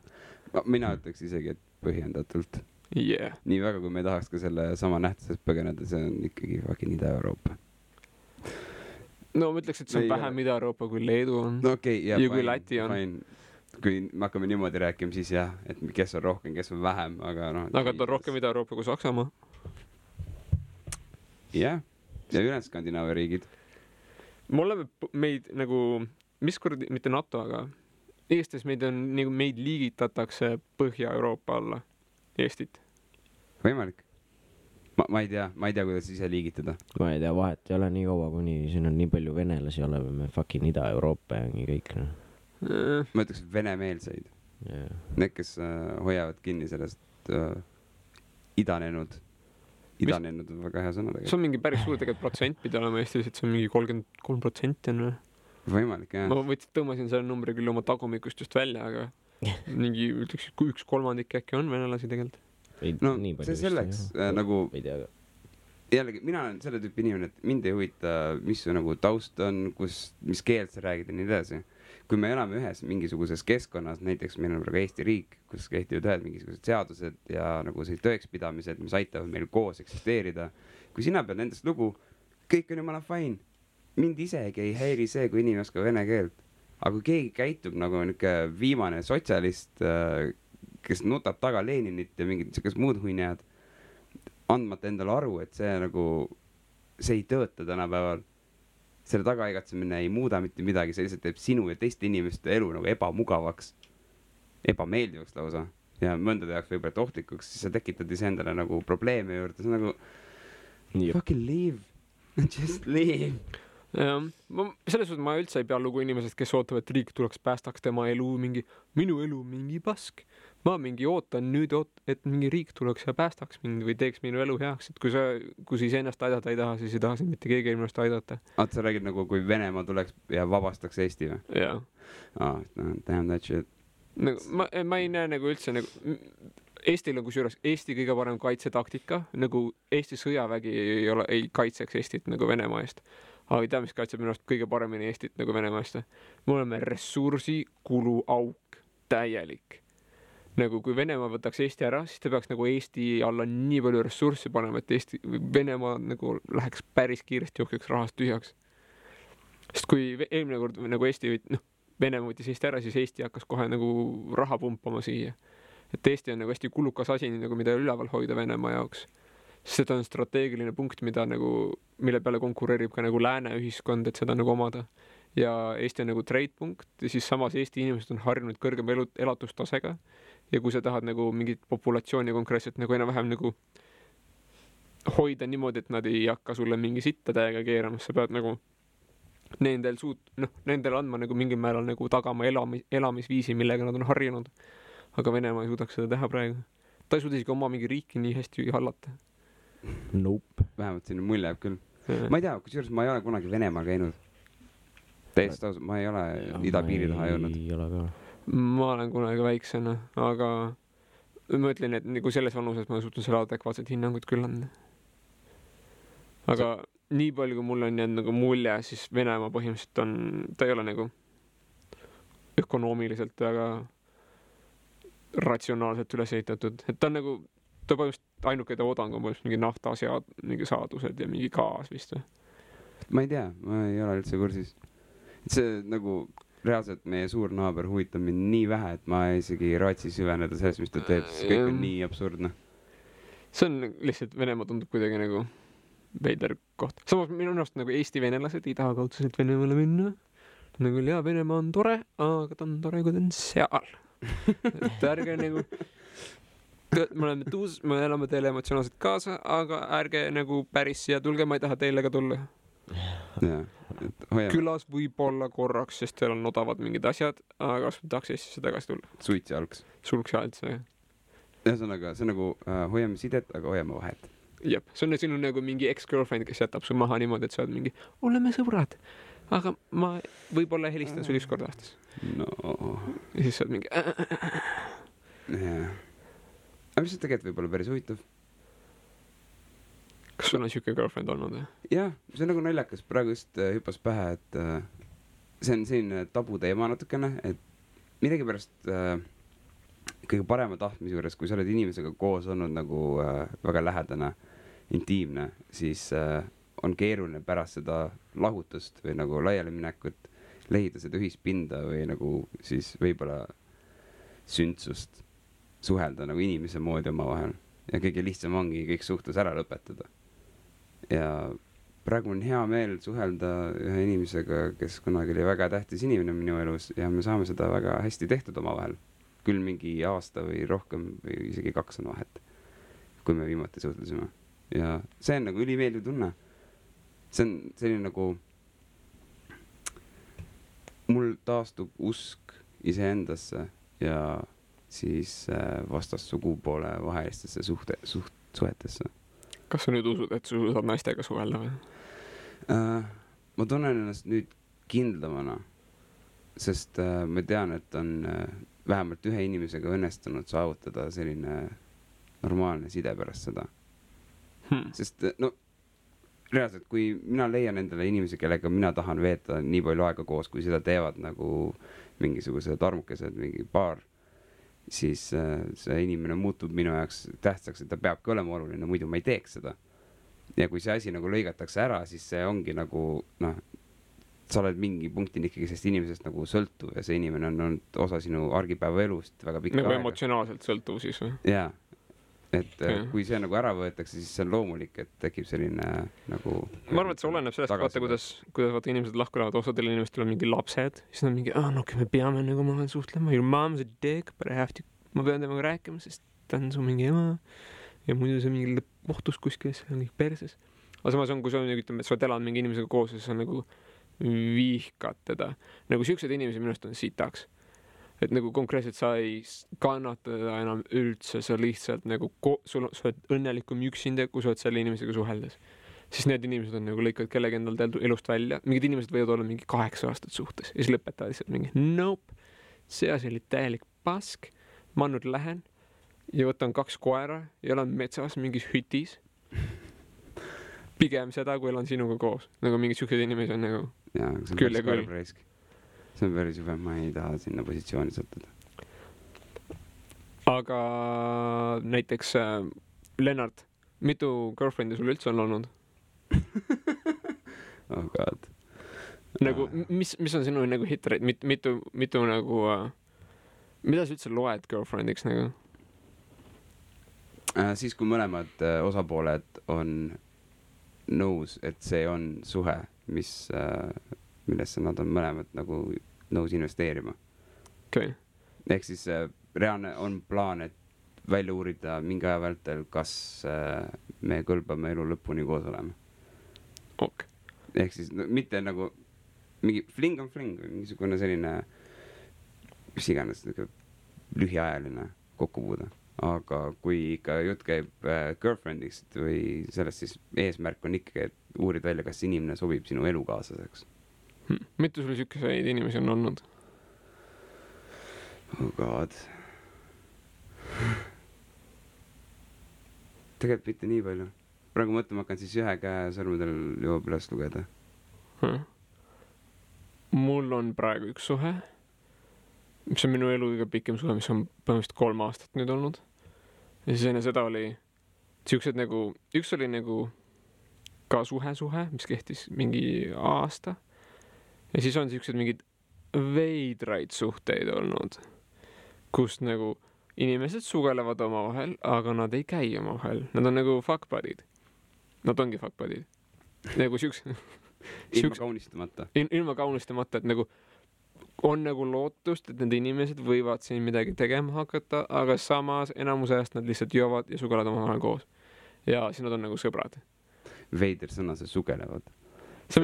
Mina ütleks isegi, et põhjendatult. Yeah. Nii väga, kui me ei tahaks ka selle sama nähtusest põgeneda, see on ikkagi fucking Ida-Euroopa. No ma ütleks, et see on vähem Ida-Euroopa kui Leedu on. No okei, ja kui Läti on. Kui me hakkame niimoodi rääkima, siis jah, et kes on rohkem, kes on vähem, aga noh. Aga ta on rohkem Ida-Euroopa kui Saksamaa. Jah, ja ülejäänud Skandinaavia riigid. me oleme meid nagu, mis kuradi, mitte NATO, aga Eestis meid on, nagu meid liigitatakse Põhja-Euroopa alla, Eestit. Võimalik. Ma ei tea, kuidas ise liigitada. Ma ei tea, vahet ei ole nii kaua, kuni siin on nii palju venelasi oleme, me fucking Ida-Euroopa ja nii kõik. Ma ütleks venemeelseid. Yeah. Need, kes hoiavad kinni sellest idanenud on väga hea sõna tegelikult. See on mingi päris suur tegelikult protsent pidi olema Eestis, et see on mingi 33% on. Võimalik, jah. Ma tõmbasin selle numbri küll oma tagumikust just välja, aga mingi ütleks, kui 1/3 äkki on venelasi tegelikult. No see selleks nagu jällegi, mina olen selle tüüpi inimene, et mind ei huvita, mis su nagu taust on, mis keelt sa räägid ja nii edasi. Kui me elame ühes mingisuguses keskkonnas, näiteks meil on praegu Eesti riik, kus kehtivad ühed mingisugused seadused ja nagu see tõekspidamised, mis aitavad meil koos eksisteerida. Kui sina pead nendest lugu, kõik on jumala fine. Mind isegi ei häiri see, kui inimene oskab vene keelt. Aga kui keegi käitub nagu niuke viimane sotsialist, kes nutab taga Leninit ja mingid sellised muud huinjad, andmata endale aru, et see nagu, see ei tööta tänapäeval. Selle tagaigatsemine ei muuda mitte midagi, see lihtsalt teeb sinu ja teiste inimeste elu nagu ebamugavaks, ebameeldivaks lausa ja mõndade jaoks võib-olla ohtlikuks, siis sa tekitad ise endale nagu probleeme juurde, see on nagu fucking leave, just leave. Ja, selles suhtes ma üldse ei pea lugu inimesest, kes ootab, et riik tuleks päästaks tema elu, minu elu mingi pask. Ma mingi ootan nüüd, et mingi riik tuleks ja päästaks mind või teeks minu elu heaks, et kui sa ennast aidata ei taha, siis ei taha mitte keegi ennast aidata. Sa räägid nagu, kui Venemaa tuleks ja vabastaks Eesti või? Jaa. Damn that shit. Ma ei näe nagu üldse nagu Eestil on kusjuures Eesti kõige parem kaitsetaktika, nagu Eesti sõjavägi ei kaitseks Eestit nagu Venemaa eest. Aga ei tea, mis kaitseb minu arust kõige paremini Eestit nagu Venemaa eest. Me oleme ressursi kulu auk, täielik. Nagu kui Venemaa võtaks Eesti ära, siis ta peaks nagu Eesti alla nii palju ressurssi panema, et Venemaa nagu läheks päris kiiresti jookeks rahast tühjaks. Sest kui eelmine kord nagu Venemaa võttis Eesti ära, siis Eesti hakkas kohe nagu raha pumpama siia. Et Eesti on nagu hästi kulukas asi, nagu mida üleval hoida Venemaa jaoks. Seda on strateegiline punkt, mille peale konkureerib ka nagu lääne ühiskond, et seda nagu omada. Ja Eesti on nagu trade-punkt ja siis samas Eesti inimesed on harjunud kõrgem elatustasega. Ja kui sa tahad nagu mingit populatsiooni konkreetselt nagu enam-vähem nagu hoida niimoodi, et nad ei hakka sulle mingi sitta täiega keerama, sa pead nagu nendel andma nagu mingil määral nagu tagama elamisviisi, millega nad on harjunud. Aga Venemaa ei suudaks seda teha praegu. Ta ei suuda isegi oma mingi riiki nii hästi hallata. Nope. Vähemalt sinna mulje jääb küll. Ma ei tea, kusjuures ma ei ole kunagi Venemaal käinud. Täiesti ausalt, ma ei ole idapiiri taha jõudnud. Ei ole ka. Ma olen kunagi väiksena, aga ma ütlen, et nagu selles vanuses ma suutan selle adekvaatset hinnangut küll anda. Aga nii palju, kui mul on jäänud nagu mulje, siis Venemaa põhimõtteliselt ta ei ole nagu ökonoomiliselt väga ratsionaalselt üles ehitatud. Et ta on nagu, ta põhimõtteliselt ainuke toodang on mingi mingi saadused ja mingi gaas vist. Ma ei tea, ma ei ole üldse kursis. See nagu reaalselt meie suur naaber huvitab mind nii vähe, et ma isegi raatsi süveneda sellest, mis ta teeb, sest kõik on nii absurdne. See on lihtsalt, Venemaa tundub kuidagi nagu veider koht. Samas minu arust nagu Eesti venelased ei taha kaudselt Venemaale minna. Nagu ja Venemaa on tore, aga ta on tore, kui ta on seal. Et ärge nagu me elame teile emotsionaalselt kaasa, aga ärge nagu päris siia tulge, ma ei taha teile ka tulla. Külas võib olla korraks, sest teil on odavad mingid asjad, aga kas tahaks Eestisse tagasi tulla? Suits ja algs. Sulks ja alts, jah. Ühesõnaga, see nagu hoiame sidet, aga hoiame vahet. Jep, see on sinu nagu mingi ex-girlfriend, kes jätab su maha niimoodi, et sa oled mingi, oleme sõbrad, aga ma võib-olla helistan sul üks kord aastas. No. Ja siis sa oled mingi jah. Aga mis see tegelikult võib olla päris huvitav? Kas sul on siuke girlfriend olnud? Jah, see on nagu naljakas. Praegu just hüppas pähe, et see on selline tabu teema natukene, et midagi pärast kõige parema tahtmise juures, kui sa oled inimesega koos olnud nagu väga lähedane, intiimne, siis on keeruline pärast seda lahutust või nagu laialiminekut leida seda ühispinda või nagu siis võib-olla sündsust suhelda nagu inimese moodi oma vahel. Ja kõige lihtsam ongi kõik suhtlus ära lõpetada. Ja praegu on hea meel suhelda ühe inimesega, kes kunagi oli väga tähtis inimene minu elus ja me saame seda väga hästi tehtud omavahel. Küll mingi aasta või rohkem või isegi 2 on vahet, kui me viimati suhtlesime. Ja see on nagu ülimeeldiv tunne. See on selline nagu mul taastub usk iseendasse ja siis vastassugupoole vahelistesse suhetesse. Kas sa nüüd usud, et sa saad naistega suhelda või? Ma tunnen ennast nüüd kindlamana, sest ma tean, et on vähemalt ühe inimesega õnnestunud saavutada selline normaalne side pärast seda. Sest no reaalselt, kui mina leian endale inimesi, kellega mina tahan veeta nii palju aega koos, kui seda teevad nagu mingisugused armukesed, mingi paar, siis see inimene muutub minu jaoks tähtsaks, et ta peabki olema oluline, muidu ma ei teeks seda. Ja kui see asi nagu lõigatakse ära, siis see ongi nagu, noh, sa oled mingi punktin ikkagi sellest inimesest nagu sõltuv ja see inimene on olnud osa sinu argipäeva elust väga pikka nagu aega. Emotsionaalselt sõltuv siis või? Jaa. Et kui see nagu ära võetakse, siis see on loomulik, et tekib selline nagu... Ma arvan, et see oleneb sellest, vaata, kuidas vaata inimesed lahku lähevad, osadel inimestel on mingi lapsed, siis nad mingi, no me peame nagu ma suhtlema, your mom's a dick, but I have to, ma pean temaga rääkima, sest ta on su mingi ema ja muidu see mingi kohtus kuskil, see on kõik perses. Aga samas on, kui sa ütleme, et sa oled elanud mingi inimesega koos ja sa nagu vihkad teda. Nagu siuksed inimesed minust on sitaks. Et nagu konkreetselt sa ei kannata teda enam üldse, sa lihtsalt nagu sa oled õnnelikum üksinda, kui sa oled selle inimesega suheldes. Siis need inimesed on nagu lõikavad kellegi endal elust välja. Mingid inimesed võivad olla mingi 8 aastat suhtes ja siis lõpetavad lihtsalt mingi nope, see asi oli täielik pask, ma nüüd lähen ja võtan 2 koera ja elan metsas mingis hütis. Pigem seda, kui elan sinuga koos. Nagu mingid siuksed inimesed on nagu küll ja küll. See on päris juba, ma ei taha sinna positsiooni sattuda. Aga näiteks Lennart, mitu girlfriend'i sul üldse on olnud? Oh god. Nagu, mis on sinu nagu hitrate? Mitu nagu... mida sa üldse loed girlfriendiks nagu? Siis kui mõlemad osapooled on nõus, et see on suhe, millesse nad on mõlemad nagu nõus investeerima. Okay. Ehk siis reaalne on plaan, et välja uurida mingi aja vältel, kas me kõlbame elu lõpuni koos olema. Ok. Ehk siis no, mitte nagu mingi fling on fling või mingisugune selline mis iganes lühiajaline kokkupuude. Aga kui ikka jutt käib girlfriendist või sellest, siis eesmärk on ikkagi, et uurid välja, kas inimene sobib sinu elukaaslaseks. Mitu sul siukeseid inimesi on olnud? Oh god. Tegelikult mitte nii palju. Praegu mõtlema hakkan siis 1 käe sõrmedel jõuab üles lugeda. Mul on praegu 1 suhe, mis on minu elu kõige pikem suhe, mis on põhimõtteliselt 3 aastat nüüd olnud. Ja siis enne seda oli siuksed nagu, üks oli nagu ka suhe, mis kehtis mingi aasta. Ja siis on siuksed mingid veidraid suhteid olnud, kus nagu inimesed sugelevad omavahel, aga nad ei käi omavahel. Nad on nagu fuck buddy'd. Nad ongi fuck buddy'd. Nagu ilma kaunistamata. Ilma kaunistamata, et nagu on nagu lootust, et need inimesed võivad siin midagi tegema hakata, aga samas enamuse ajast nad lihtsalt joovad ja sugelevad omavahel koos. Ja siis nad on nagu sõbrad. Veider sõna, see sugelevad. See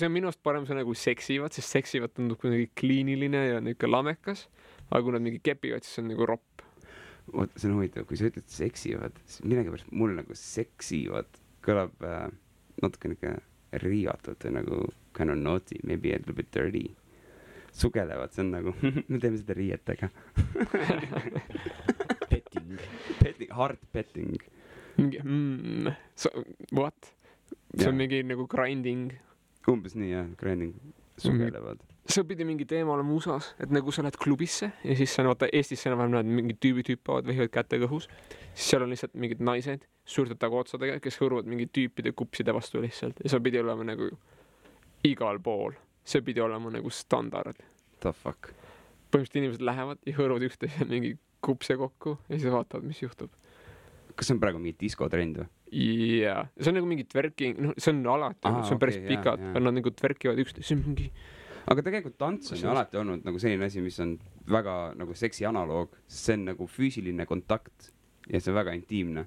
on minust parem sõna kui seksivad, sest seksivad tundub kuidagi kliiniline ja niisugune lamekas, aga kui nad mingi kepivad, siis see on nagu ropp. Oota, see on huvitav, kui sa ütled seksivad, siis midagi pärast mul nagu seksivad kõlab natuke niisugune riivatult või nagu kind of naughty, maybe a little bit dirty. Sugelevad, see on nagu, me teeme seda riietega. Petting, hard petting. What? See on mingi nagu grinding. Umbes nii, jah, grinding. Sugelevad. See pidi mingi teema olema USA-s, et nagu sa lähed klubisse ja siis sa vaata Eestis enam-vähem näed mingid tüübid hüppavad, vehivad kätega õhus. Siis seal on lihtsalt mingid naised suurte tagootsadega, kes hõõruvad mingi tüüpide kupside vastu lihtsalt. Ja see pidi olema nagu igal pool. See pidi olema nagu standard. The fuck? Põhimõtteliselt inimesed lähevad ja hõõruvad üksteise mingi kupse kokku ja siis vaatavad, mis juhtub. kas see on praegu mingi diskotrend või? jaa, see on nagu mingi twerking, noh, see on alati, see on päris pikad, aga nad nagu twerkivad üksteist, see on mingi. aga tegelikult tants on ju alati olnud nagu selline asi, mis on väga nagu seksi analoog, sest see on nagu füüsiline kontakt ja see on väga intiimne.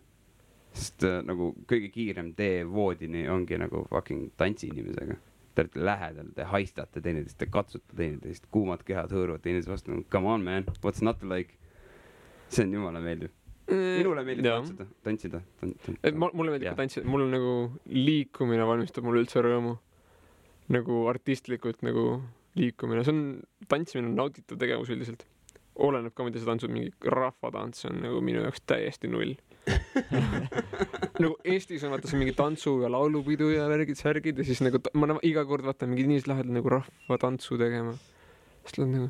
Sest nagu kõige kiirem tee voodini ongi nagu fucking tantsi inimesega. Te olete lähedal, te haistate teineteist, te katsute teineteist, kuumad kehad hõõruvad teineteist vastu. Come on man, what's not to like? See on jumala meeldiv. Minule meeldib tantsida. Mulle meeldib ka tantsida, mul on nagu liikumine valmistab mulle üldse rõõmu. Nagu artistlikult nagu liikumine. See on, tantsimine on nautitud tegevus üldiselt. Oleneb ka, mida see tantsud, mingi rahvatants on nagu minu jaoks täiesti null. Nagu Eestis on vaata see mingi tantsu ja laulupidu ja värgid, särgid ja siis nagu ma iga kord vaatan mingi inimesed lähevad nagu rahvatantsu tegema. Siis tuleb nagu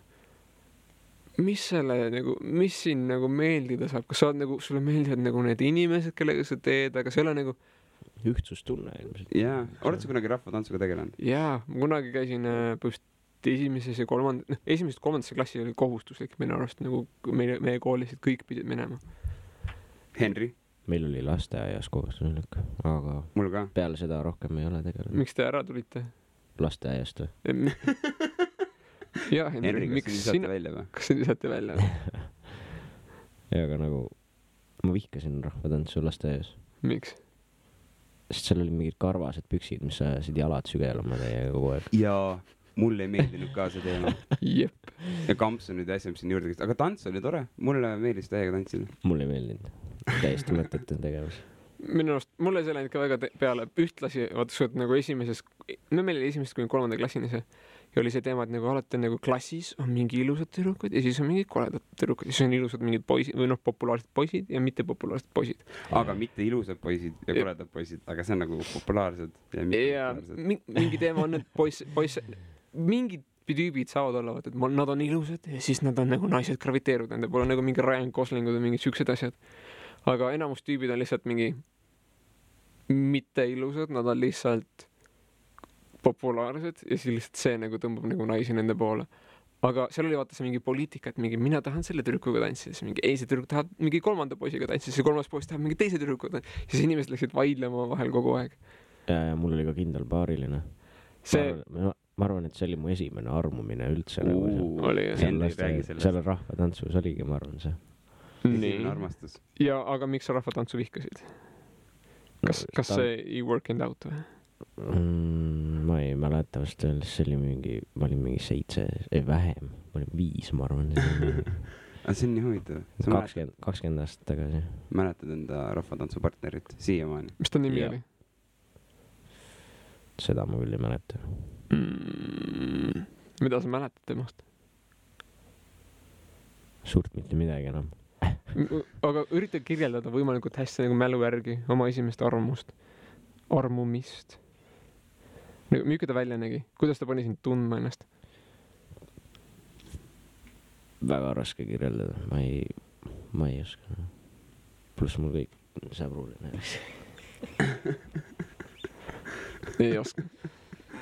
mis siin nagu meeldida saab, kas sa oled nagu, sulle meeldivad nagu need inimesed, kellega sa teed, aga see ei ole nagu ühtsustunne ilmselt. Jaa, oled sa kunagi rahvatantsuga tegelenud? Jaa, ma kunagi käisin esimeses ja kolmandasse klassi oli kohustuslik minu arust, nagu meie koolis, et kõik pidid minema. Henry? Meil oli lasteaias kohustuslik, aga mul ka. Peale seda rohkem ei ole tegelenud. Miks te ära tulite? Lasteaiast või? Jaa, Henry, kas sa lisate välja? Ja aga nagu ma vihkasin rahvatantsu lasteaias. Miks? Sest seal oli mingid karvased püksid, mis ajasid jalad sügelema teie kogu aeg. Jaa, mulle ei meeldinud ka see teema. Jep. Ja kamps on nüüd asja, mis siin juurde käis. Aga tants oli tore. Mulle meeldis täiega tantsida. Mulle ei meeldinud. Täiesti mõttetu tegevus. Minu arust, mulle see läinud ka väga peale ühtlasi, vaata, et nagu meil oli esimesest kuni 3. klassini see. Ja oli see teema, et nagu alati nagu klassis on mingi ilusad tüdrukud ja siis on mingid koledad tüdrukud ja siis on ilusad mingid poisid või populaarsed poisid ja mitte populaarsed poisid. Aga mitte ilusad poisid ja koledad poisid, aga see on nagu populaarsed ja mitte populaarsed. Mingi teema on, et mingid tüübid saavad olla, et nad on ilusad ja siis nad on nagu naised graviteeruvad, nende pole nagu mingi Ryan Goslingud või mingid siuksed asjad. Aga enamus tüübid on lihtsalt mingi mitte ilusad, nad on lihtsalt populaarsed ja siis lihtsalt see nagu tõmbab nagu naisi nende poole. Aga seal oli vaata see mingi poliitika, et mingi mina tahan selle tüdrukuga tantsida, siis mingi see tüdruk tahab mingi 3. poisiga tantsida, siis 3. poiss tahab mingi teise tüdrukuga tantsida, siis inimesed läksid vaidlema vahel kogu aeg. Ja mul oli ka kindel paariline. Ma arvan, et see oli mu esimene armumine üldse. Seal rahvatantsus oligi, ma arvan see. Esimene armastus. Ja aga miks sa rahvatantsu vihkasid? Kas see ei working out või? Ma ei mäleta vast öeldes, see oli ma olin mingi 7, vähem, ma olin 5, ma arvan. See on nii huvitav. 20 aastat tagasi. Mäletad enda rahvatantsupartnerit siiamaani? Mis ta nimi oli? Seda ma küll ei mäleta. Mida sa mäletad temast? Suurt mitte midagi enam. Aga ürita kirjeldada võimalikult hästi nagu mälu järgi oma esimest armumist. Milline ta välja nägi? Kuidas ta pani sind tundma ennast? Väga raske kirjeldada. Ma ei oska. Pluss mul kõik sõbruline. Ei oska.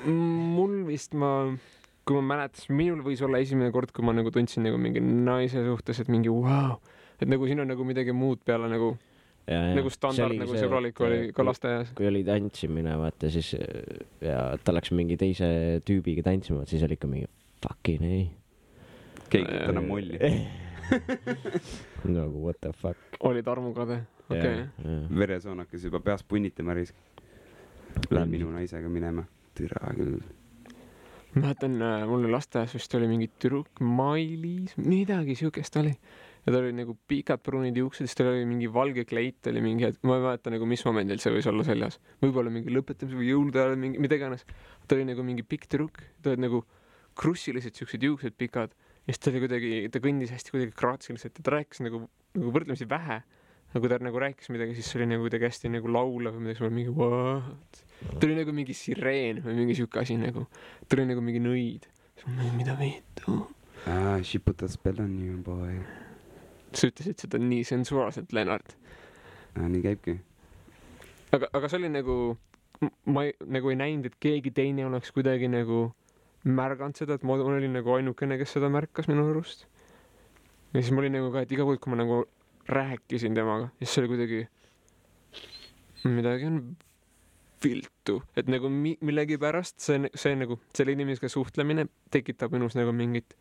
Mul vist kui ma mäletas, minul võis olla esimene kord, kui ma nagu tundsin nagu mingi naise suhtes, et mingi wow. Et nagu siin on nagu midagi muud peale nagu nagu standard, nagu sõbralik oli ka lasteaias. Kui oli tantsimine, vaata, siis ja ta läks mingi teise tüübiga tantsima, siis oli ikka mingi fucking ei. Keegi täna molli. Nagu what the fuck. Olid armukade, okei. Veresoonakas juba peas punnitama risk. Lähen minu naisega minema. Türa küll. Mäletan, mul lasteaias vist oli mingi tüdruk, Mailis, midagi siukest oli. Ja ta oli nagu pikad pruunid juuksed, siis tal oli mingi valge kleit, oli mingi, ma ei mäleta nagu mis momendil see võis olla seljas. Võib-olla mingi lõpetamise või jõulude ajal, mida iganes. Ta oli nagu mingi pikk tüdruk, ta oli nagu krussilised siuksed juuksed pikad. Ja siis ta oli kuidagi, ta kõndis hästi kuidagi kraatsiliselt ja ta rääkis nagu võrdlemisi vähe. Nagu ta nagu rääkis midagi, siis see oli nagu kuidagi hästi nagu laulav või midagi, see oli mingi what? Ta oli nagu mingi sireen või mingi siuke asi nagu. Ta oli nagu mingi nõid. Mida viitu? She put a spell on you, boy. Sa ütlesid seda nii sensuaalselt, Lennart. Nii käibki. Aga see oli nagu, ma nagu ei näinud, et keegi teine oleks kuidagi nagu märganud seda, et ma olin nagu ainukene, kes seda märkas minu arust. Ja siis ma olin nagu ka, et iga kord, kui ma nagu rääkisin temaga, siis see oli kuidagi midagi on viltu, et nagu millegipärast see nagu selle inimesega suhtlemine tekitab minus nagu mingit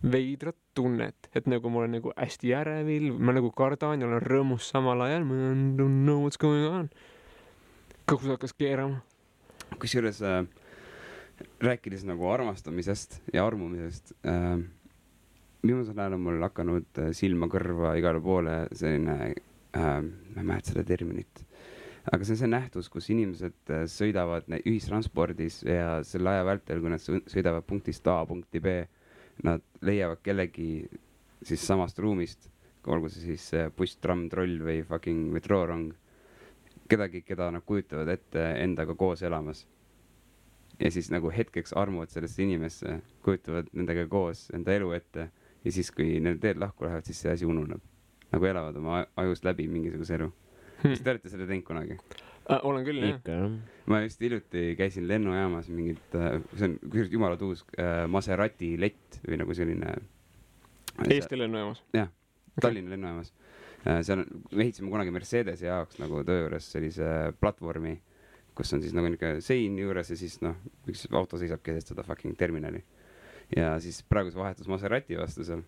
veidrat tunnet, et nagu ma olen nagu hästi ärevil, ma nagu kardan ja olen rõõmus samal ajal, ma don't know what's going on. Kus hakkas keerama. Kusjuures rääkides nagu armastamisest ja armumisest, viimasel ajal on mul hakanud silma kõrva igale poole selline, ma ei mäleta seda terminit, aga see on see nähtus, kus inimesed sõidavad ühistranspordis ja selle aja vältel, kui nad sõidavad punktist A punkti B, nad leiavad kellegi siis samast ruumist, olgu see siis buss, tramm, troll või fucking metroorong, kedagi, keda nad kujutavad ette endaga koos elamas. Ja siis nagu hetkeks armuvad sellesse inimesse, kujutavad nendega koos enda elu ette ja siis, kui need teed lahku lähevad, siis see asi ununeb. Nagu elavad oma ajust läbi mingisuguse elu. Kas te olete selle teinud kunagi? Olen küll, jah. Ma just hiljuti käisin lennujaamas mingit, see on jumala tuus Maserati lett või nagu selline... Eesti lennujaamas? Jah, Tallinna lennujaamas. Me ehitasime kunagi Mercedese jaoks nagu töö juures sellise platvormi, kus on siis nagu niisugune sein juures ja siis üks auto seisab keset seda fucking terminali. Ja siis praegu see vahetus Maserati vastu seal.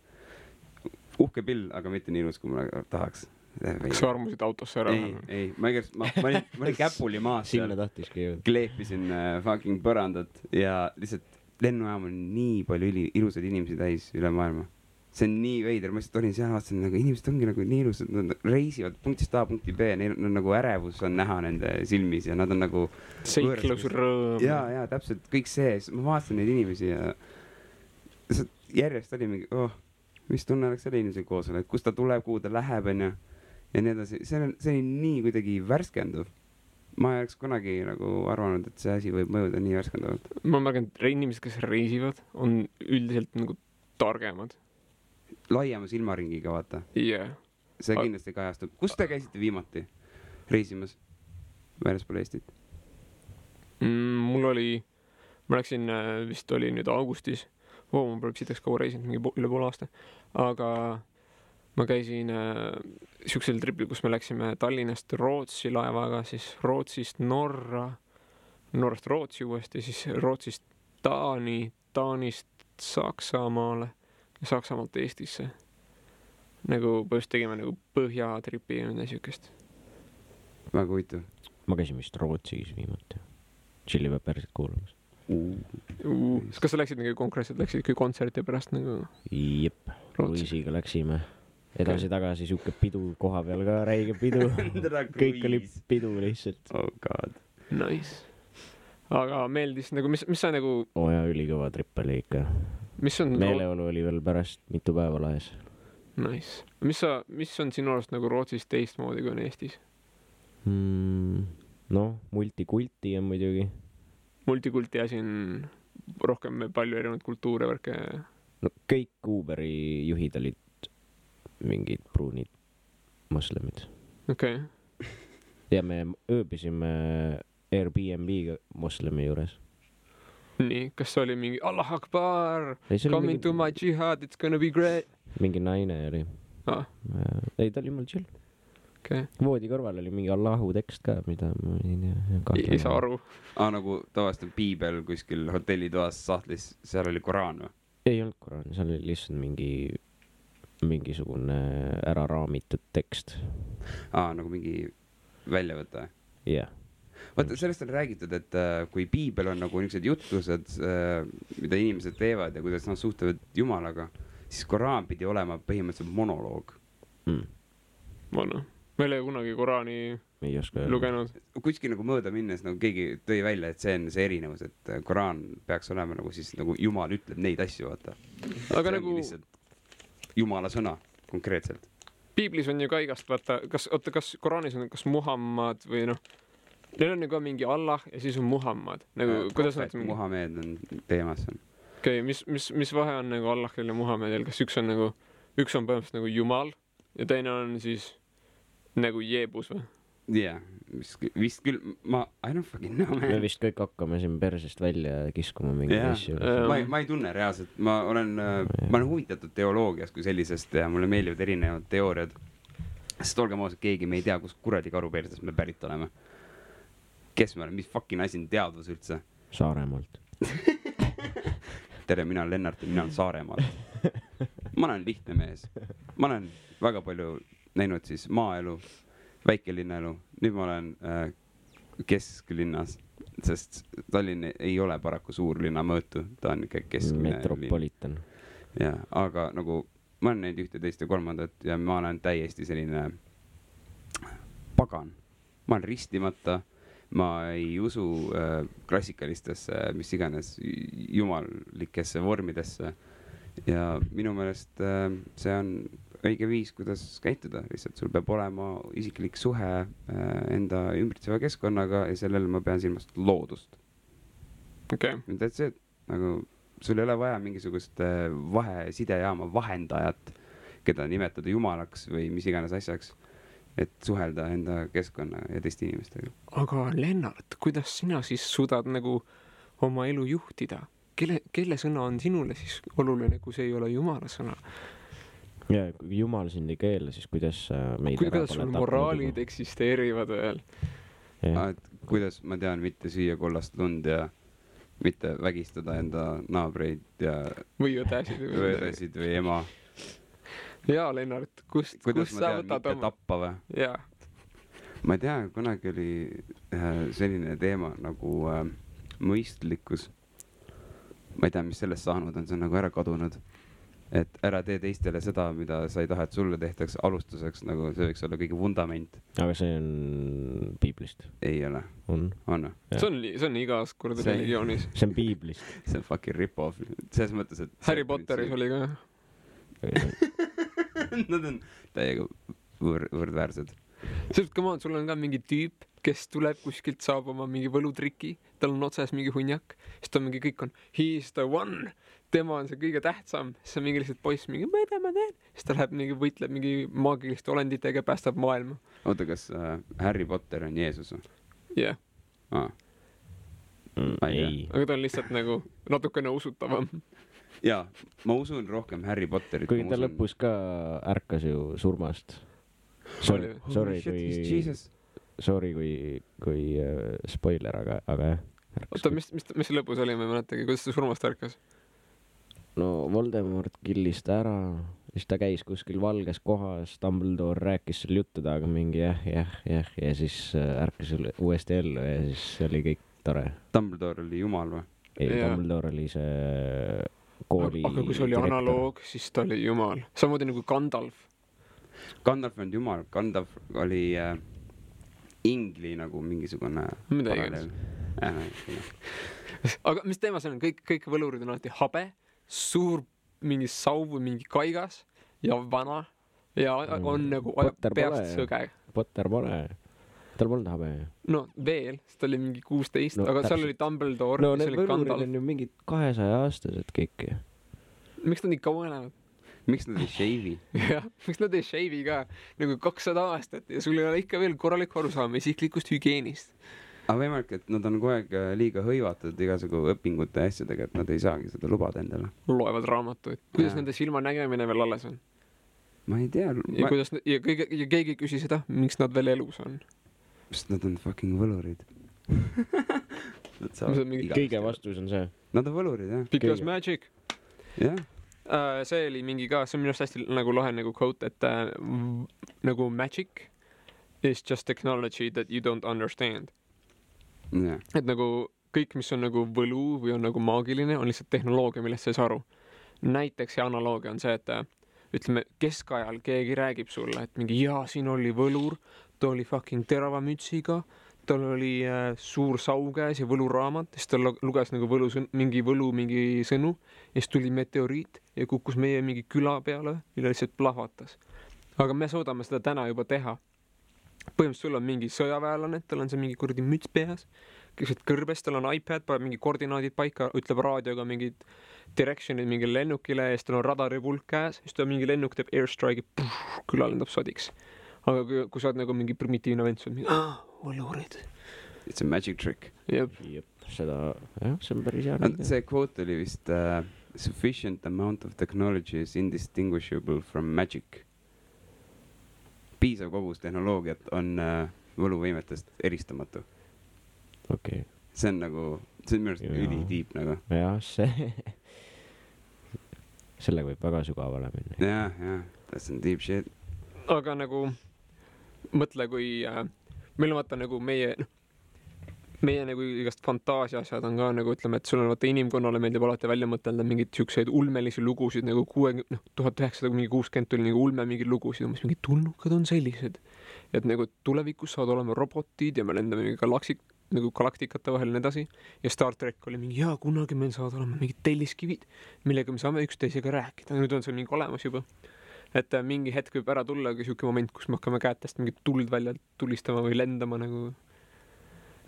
Uhke pill, aga mitte nii ilus, kui ma tahaks. Kas sa armusid autosse ära? Ei, ma olin käpuli maas seal. Sinna tahtiski jõud. Kleepisin fucking põrandat ja lihtsalt lennujaam on nii palju ilusad inimesi täis üle maailma. See on nii veider, ma lihtsalt olin seal vaatasin, nagu inimesed ongi nagu nii ilusad, nad reisivad punktist A punkti B, neil on nagu ärevus on näha nende silmis ja nad on nagu... Seiklus, rõõm. Ja, täpselt kõik see, ma vaatasin neid inimesi ja järjest oli mingi, mis tunne oleks selle inimesega koos olla, et kust ta tuleb, kuhu ta läheb ja nii edasi. See oli nii kuidagi värskenduv. Ma ei oleks kunagi nagu arvanud, et see asi võib mõjuda nii värskendavalt. Ma märgan, et inimesed, kes reisivad, on üldiselt nagu targemad. Laiema silmaringiga, vaata. Yeah. See kindlasti kajastub. Kus te käisite viimati reisimas väljaspool Eestit? Ma läksin, vist oli nüüd augustis. Ma pole sitaks kaua reisinud, mingi üle pool aasta. Aga ma käisin siuksel tripil, kus me läksime Tallinnast Rootsi laevaga, siis Rootsist Norrast Rootsi uuesti, siis Rootsist Taani, Taanist Saksamaale ja Saksamaalt Eestisse. Nagu põhjust tegime nagu põhjatripi ja midagi siukest. Väga huvitav. Ma käisin vist Rootsis viimati. Chili Peppersit kuulamas. Kas sa läksid nagu konkreetselt, läksid kui kontserti pärast nagu? Jep, Luisiga läksime. Edasi-tagasi siuke pidu koha peal ka, räige pidu. Kõik oli pidu lihtsalt. Oh god. Nice. Aga meeldis nagu, mis sa nagu... Ja, ülikõva trip oli ikka. Meeleolu oli veel pärast mitu päeva laes. Nice. Mis on sinu arust nagu Rootsis teistmoodi kui on Eestis? Multikulti on muidugi. Multikulti asi on rohkem palju erinevaid kultuure värke. Kõik Uberi juhid olid mingid pruunid moslemid. Okei. Ja me ööbisime Airbnb moslemi juures. Nii, kas oli mingi Allah Akbar, coming to my jihad, it's gonna be great? Mingi naine oli. Ei, ta oli mul chill. Okay. Voodi kõrval oli mingi Allahu tekst ka, mida ma ei saa aru. Nagu tavaliselt piibel kuskil hotellitoas sahtlis, seal oli Koraan või? Ei olnud Koraan, seal oli lihtsalt mingisugune ära raamitud tekst. Nagu mingi väljavõte? Jah. Vaata, sellest on räägitud, et kui piibel on nagu niisugused jutlused, mida inimesed teevad ja kuidas nad suhtlevad Jumalaga, siis Koraan pidi olema põhimõtteliselt monoloog. Ma ei ole kunagi Koraani lugenud. Kuskil nagu mööda minnes nagu keegi tõi välja, et see on see erinevus, et Koraan peaks olema nagu siis nagu Jumal ütleb neid asju, vaata. Aga nagu... Jumala sõna, konkreetselt. Piiblis on ju ka igast, vaata, kas Koraanis on kas Muhammad või neil on nagu mingi Allah ja siis on Muhammad. Nagu, Muhammed on teemas. Okei, mis vahe on nagu Allahil ja Muhammedil? Kas üks on põhimõtteliselt nagu Jumal ja teine on siis nagu Jeebus või? Jah, vist küll, I don't fucking know, man. Me vist kõik hakkame siin persest välja kiskuma mingi asju. Ma ei tunne reaalselt, ma olen huvitatud teoloogiast kui sellisest ja mulle meeldivad erinevad teooriad. Sest olgem ausad, keegi me ei tea, kus kuradi karu persest me pärit oleme. kes ma olen, mis fucking asi on teadvus üldse? Saaremaalt. Tere, mina olen Lennart ja mina olen Saaremaalt. Ma olen lihtne mees. Ma olen väga palju näinud siis maaelu, väikelinnaelu. Nüüd ma olen kesklinnas, sest Tallinn ei ole paraku suurlinna mõõtu. Ta on ikka keskmine Metropolitan. Ja, aga nagu ma olen näinud ühte, teist ja kolmandat ja ma olen täiesti selline pagan. Ma olen ristimata. Ma ei usu klassikalistesse, mis iganes jumalikesse vormidesse ja minu meelest see on õige viis, kuidas käituda. Lihtsalt sul peab olema isiklik suhe enda ümbritseva keskkonnaga ja sellele ma pean silmast loodust. Okay. That's it. Nagu sul ei ole vaja mingisugust sidejaama vahendajat, keda nimetada jumalaks või mis iganes asjaks. Et suhelda enda keskkonna ja teiste inimestega. Aga Lennart, kuidas sina siis suudad nagu oma elu juhtida? Kelle sõna on sinule siis oluline, kui see ei ole Jumala sõna? Ja kui Jumal sind ei keela, siis kuidas meid kuidas sul moraalid eksisteerivad veel? Kuidas ma tean mitte süüa kollast lund ja mitte vägistada enda naabreid ja või õdesid või ema. Jaa, Lennart, kust sa võtad oma? Tappa või? Jaa. Ma ei tea, kunagi oli selline teema nagu mõistlikkus. Ma ei tea, mis sellest saanud on, see on nagu ära kadunud. Et ära tee teistele seda, mida sa ei taha, et sulle tehtaks alustuseks, nagu see võiks olla kõige vundament. Aga see on piiblist? Ei ole. On? See on igas kord religioonis. See on piiblist. See on fucking rip-off. Selles mõttes, et... Harry Potteris oli ka. Nad on täiega võrdväärsed. Sest come on, sul on ka mingi tüüp, kes tuleb kuskilt, saab oma mingi võlutriki, tal on otsas mingi hunjak, siis ta mingi kõik on he's the one, tema on see kõige tähtsam, siis on mingi lihtsalt poiss mingi, ma ei tea, ma teen, siis ta läheb mingi võitleb mingi maagiliste olenditega ja päästab maailma. Oota, kas Harry Potter on Jeesus? Jah. Ei. Aga ta on lihtsalt nagu natukene usutavam. Jaa, ma usun rohkem Harry Potterit. Kui ta lõpus ka ärkas ju surmast. Sorry kui spoiler, aga jah. Oota, mis see lõpus oli, ma ei mäletagi, kuidas ta surmast ärkas? No Voldemort killis ta ära, siis ta käis kuskil valges kohas, Dumbledore rääkis seal juttuda, aga mingi jah, ja siis ärkas uuesti ellu ja siis oli kõik tore. Dumbledore oli jumal või? Ei, Dumbledore oli see kooli aga kui see oli direktor. Analoog, siis ta oli jumal. Samamoodi nagu Gandalf. Gandalf on jumal, Gandalf oli ingli nagu mingisugune paralleel. Aga mis teema see on? Kõik võlurid on alati habe, suur mingi sauv või mingi kaigas ja vana ja on nagu peast sõge. Potter pole. Tal polnud habe. No veel, sest ta oli mingi 16, aga seal oli Dumbledore. No need võlurid on ju mingid 200-aastased kõik. Miks nad nii kaua elavad? Miks nad ei shave'i? Jah, miks nad ei shave'i ka? Nagu 200 aastat ja sul ei ole ikka veel korralik arusaam isiklikust hügieenist. Aga võimalik, et nad on kogu aeg liiga hõivatud igasugu õpingute ja asjadega, et nad ei saagi seda lubada endale. Loevad raamatuid. Kuidas nende silma nägemine veel alles on? Ma ei tea. Ja keegi küsi seda, miks nad veel elus on? Sest nad on fucking võlurid. Kõige vastus on see. Nad on võlurid, jah. Because magic. Jah. See oli mingi ka, see on minu arust hästi nagu lahe nagu quote, et nagu magic is just technology that you don't understand. Yeah. Et nagu kõik, mis on nagu võlu või on nagu maagiline, on lihtsalt tehnoloogia, millest sa ei saa aru. Näiteks see analoogia on see, et ütleme, keskajal keegi räägib sulle, et mingi siin oli võlur, ta oli fucking terava mütsiga, tal oli suur saukäes ja võluraamat, siis ta luges nagu mingi sõnu ja siis tuli meteoriit ja kukkus meie mingi küla peale ja lihtsalt plahvatas. Aga me suudame seda täna juba teha. Põhimõtteliselt sul on mingi sõjaväelane, tal on see mingi kuradi müts peas, keset kõrbes, tal on iPad, paneb mingi koordinaadid paika, ütleb raadioga mingid directionid mingi lennukile ja siis tal on radaripulk käes, siis ta mingi lennuk teeb airstrike'i, küla lendab sodiks. Aga kui sa oled nagu mingi primitiivne vend, sa oled mingi, võlurid. It's a magic trick. Jep. Seda, jah, see on päris hea. See quote oli vist sufficient amount of technology is indistinguishable from magic. Piisav kogus tehnoloogiat on võluvõimetest eristamatu. okei . see on nagu , see on minu arust Jaa. ülitiip nagu . jah , sellega võib väga sügavale minna . jah , that's some deep shit . aga nagu mõtle , kui meil on vaata nagu meie nagu igast fantaasia asjad on ka nagu ütleme , et sul on vaata inimkonnale meeldib alati välja mõtelda mingeid siukseid ulmelisi lugusid nagu 1960 tuli nagu ulme mingeid lugusid , umbes mingid tulnukad on sellised , et nagu tulevikus saavad olema robotid ja me lendame mingi galaktikate vahel ja nii edasi ja Star track oli mingi jaa , kunagi meil saavad olema mingid telliskivid , millega me saame üksteisega rääkida , nüüd on see mingi olemas juba . et mingi hetk võib ära tulla ka siuke moment , kus me hakkame kätest mingit tuld välja tulistama või lendama nagu .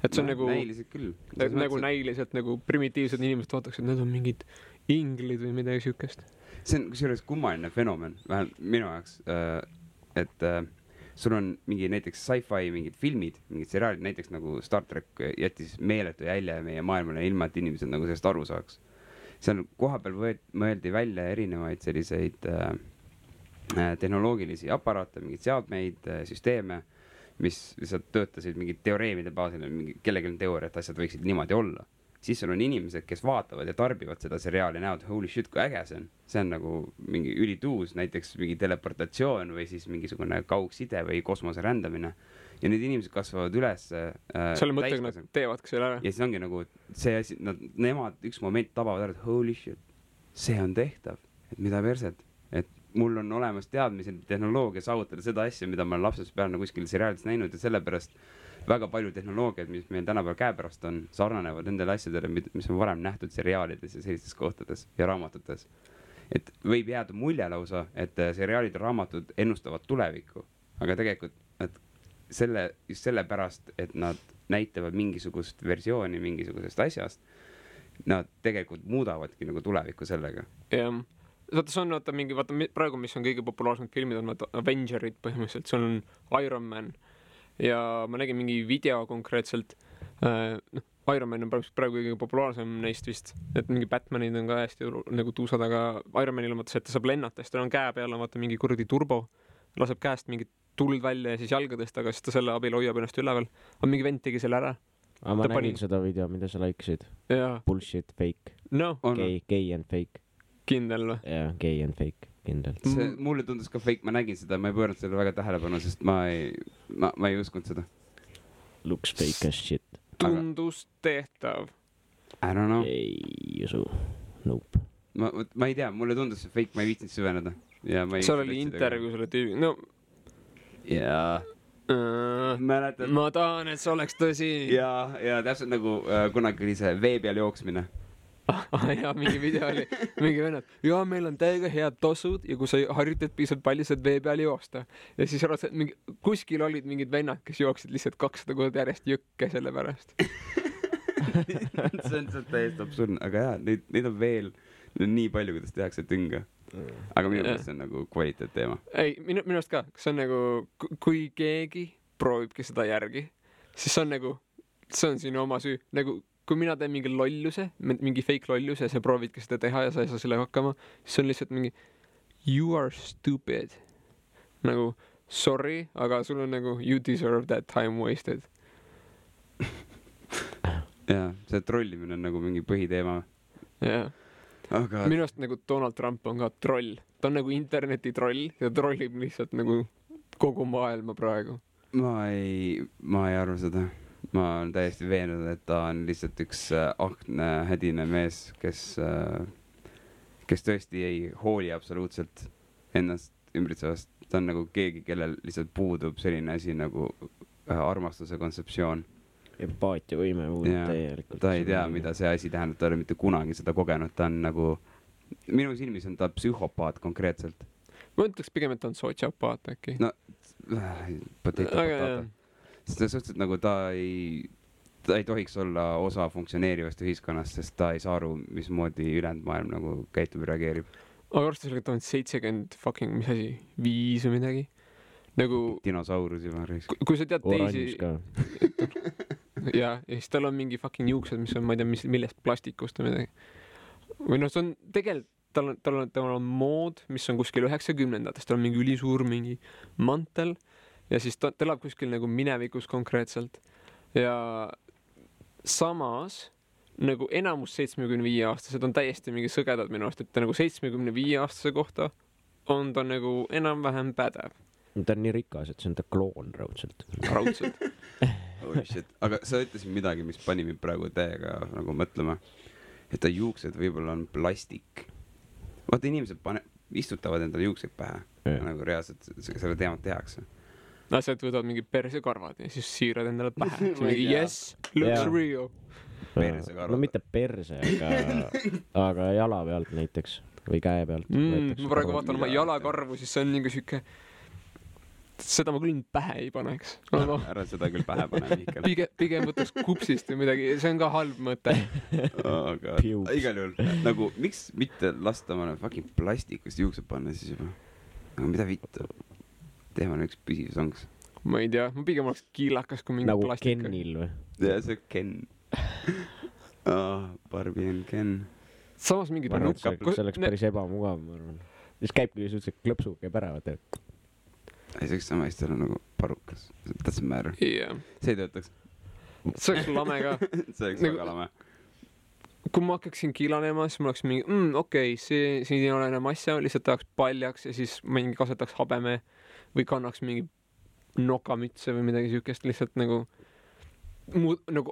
et see on nagu näiliselt küll . nagu näiliselt nagu primitiivsed inimesed vaataks , et need on mingid inglid või midagi siukest . see on kusjuures kummaline fenomen , vähemalt minu jaoks , et sul on mingi näiteks sci-fi mingid filmid , mingid seriaalid , näiteks nagu Star track jättis meeletu jälje meie maailmale ilma , et inimesed nagu sellest aru saaks . seal kohapeal mõeldi välja erinevaid selliseid tehnoloogilisi aparaate , mingeid seadmeid , süsteeme , mis lihtsalt töötasid mingid teoreemide baasil , mingi kellelgi on teooria , et asjad võiksid niimoodi olla . siis sul on inimesed , kes vaatavad ja tarbivad seda seriaali , näevad holy shit , kui äge see on . see on nagu mingi ülituus , näiteks mingi teleportatsioon või siis mingisugune kaugside või kosmose rändamine . ja need inimesed kasvavad üles . selle mõttega nad teevadki selle ära . ja siis ongi nagu see asi , nemad üks moment tabavad ära , et holy shit , see on tehtav , et mida perset , et mul on olemas teadmised , tehnoloogia saavutada seda asja , mida ma olen lapsest peale nagu kuskil seriaalis näinud ja sellepärast väga palju tehnoloogiad , mis meil tänapäeval käepärast on , sarnanevad nendele asjadele , mis on varem nähtud seriaalides ja sellistes kohtades ja raamatutes . et võib jääda mulje lausa , et seriaalid ja raamatud ennustavad tulevikku , aga tegelikult , et just sellepärast , et nad näitavad mingisugust versiooni mingisugusest asjast , nad tegelikult muudavadki nagu tulevikku sellega . jah , vaata see on vaata praegu , mis on kõige populaarsemad filmid on vaata Avengerid põhimõtteliselt , see on Iron Man ja ma nägin mingi video konkreetselt , Iron Man on praegu kõige populaarsem neist vist , et mingi Batmanid on ka hästi nagu tuusad , aga Iron Manil on vaata see , et ta saab lennata , siis tal on käe peal on vaata mingi kuradi turbo , laseb käest mingit tuld välja ja siis jalgadest , aga siis ta selle abil hoiab ennast üleval . aga mingi vend tegi selle ära . aga ma Ta nägin pani- seda video , mida sa like'isid . jaa , Bullshit , fake , noh , gay and fake . kindel või ? jah , gay and fake , kindlalt . see mulle tundus ka fake , ma nägin seda , ma ei pööranud sellele väga tähelepanu , sest ma ei uskunud seda . Looks fake as shit . tundus tehtav . I don't know , ei usu . Nope . ma ei tea , mulle tundus see fake , ma ei viitsinud süveneda . ja ma ei . seal oli intervjuu selle tüübi , no jaa , mäletad ? ma tahan , et see oleks tõsi . ja täpselt nagu kunagi oli see vee peal jooksmine . ja mingi video oli , mingi vennad , ja meil on täiega head tossud ja kui sa harjutad piisavalt palju , saad vee peal joosta . ja siis arvad , et mingi kuskil olid mingid vennad , kes jooksid lihtsalt 200 korda järjest jõkke selle pärast . see on täiesti absurdne , aga jaa , neid on veel nii palju , kuidas tehakse tünga . aga minu meelest see on nagu kvaliteetteema . ei , minu arust ka , see on nagu , kui keegi proovibki seda järgi , siis see on nagu , see on sinu oma süü , nagu kui mina teen mingi lolluse , mingi fake lolluse ja sa proovidki seda teha ja sa ei saa sellega hakkama , siis see on lihtsalt mingi you are stupid . nagu sorry , aga sul on nagu you deserve that time wasted . jaa , see trollimine on nagu mingi põhiteema . jah , aga minu arust nagu Donald Trump on ka troll , ta on nagu interneti troll ja trollib lihtsalt nagu kogu maailma praegu . ma ei arva seda . ma olen täiesti veendunud , et ta on lihtsalt üks akne hädine mees , kes tõesti ei hooli absoluutselt ennast ümbritsevast . ta on nagu keegi , kellel lihtsalt puudub selline asi nagu armastuse kontseptsioon . empaatiavõime puudub Jaa, täielikult . ta ei tea , mida see asi tähendab , ta ei ole mitte kunagi seda kogenud , ta on nagu , minu silmis on ta psühhopaat konkreetselt . ma ütleks pigem , et ta on sotsiopaat äkki . no potato . sest suhteliselt nagu ta ei tohiks olla osa funktsioneerivast ühiskonnast , sest ta ei saa aru , mismoodi ülejäänud maailm nagu käitub ja reageerib . aga arvestades sellega , et ta on 70 fucking , mis asi , 5 või midagi . nagu dinosaurus juba . kui sa tead oranž teisi ka . ja siis tal on mingi fucking juuksed , mis on , ma ei tea , millest plastikust või midagi . või noh , see on tegelikult , tal on mood , mis on kuskil 90-ndatest , tal on mingi ülisuur mingi mantel ja siis ta elab kuskil nagu minevikus konkreetselt ja samas nagu enamus 75-aastased on täiesti mingi sõgedad minu arust, et nagu 75-aastase kohta on ta nagu enam-vähem pädev. Ta on nii rikas, et see on ta kloon raudselt. Holy shit. Aga sa ütlesid midagi, mis pani mind praegu täiega nagu mõtlema, et ta juuksed võib-olla on plastik. Vaata, inimesed istutavad endale juukseid pähe, nagu reaalselt selle teemat tehakse. Asjad võtavad mingi persekarvad ja siis siirad endale pähe. Mingi yes, looks real. No mitte perse, aga jala pealt näiteks või käe pealt. Ma praegu vaatan oma jalakarvu, siis see on mingi siuke, seda ma küll pähe ei paneks. Ära seda küll pähe pane, Mihkel. Pigem võtaks kupsist või midagi, see on ka halb mõte. Igal juhul, nagu miks mitte lasta omale fucking plastikust juuksed panna siis juba? Aga mida vittu? Teeme üks püsiv songs. Ma ei tea, ma pigem oleks kiilakas kui mingi nagu plastika. Nagu Kenil või? Ja see Ken. Barbie and Ken. Samas mingi see oleks päris ebamugav, ma arvan. Siis käibki suhteliselt klõpsu, käib ära, vaata. Ei, see oleks sama hästi olla nagu parukas. Doesn't matter. Yeah. See ei töötaks. See oleks lame ka. See oleks väga lame. Kui ma hakkaksin kiilanema, siis ma oleks mingi, okei, siin ei ole enam asja, lihtsalt tahaks paljaks ja siis mingi kasetaks habeme või kannaks mingi nokamütse või midagi siukest, lihtsalt nagu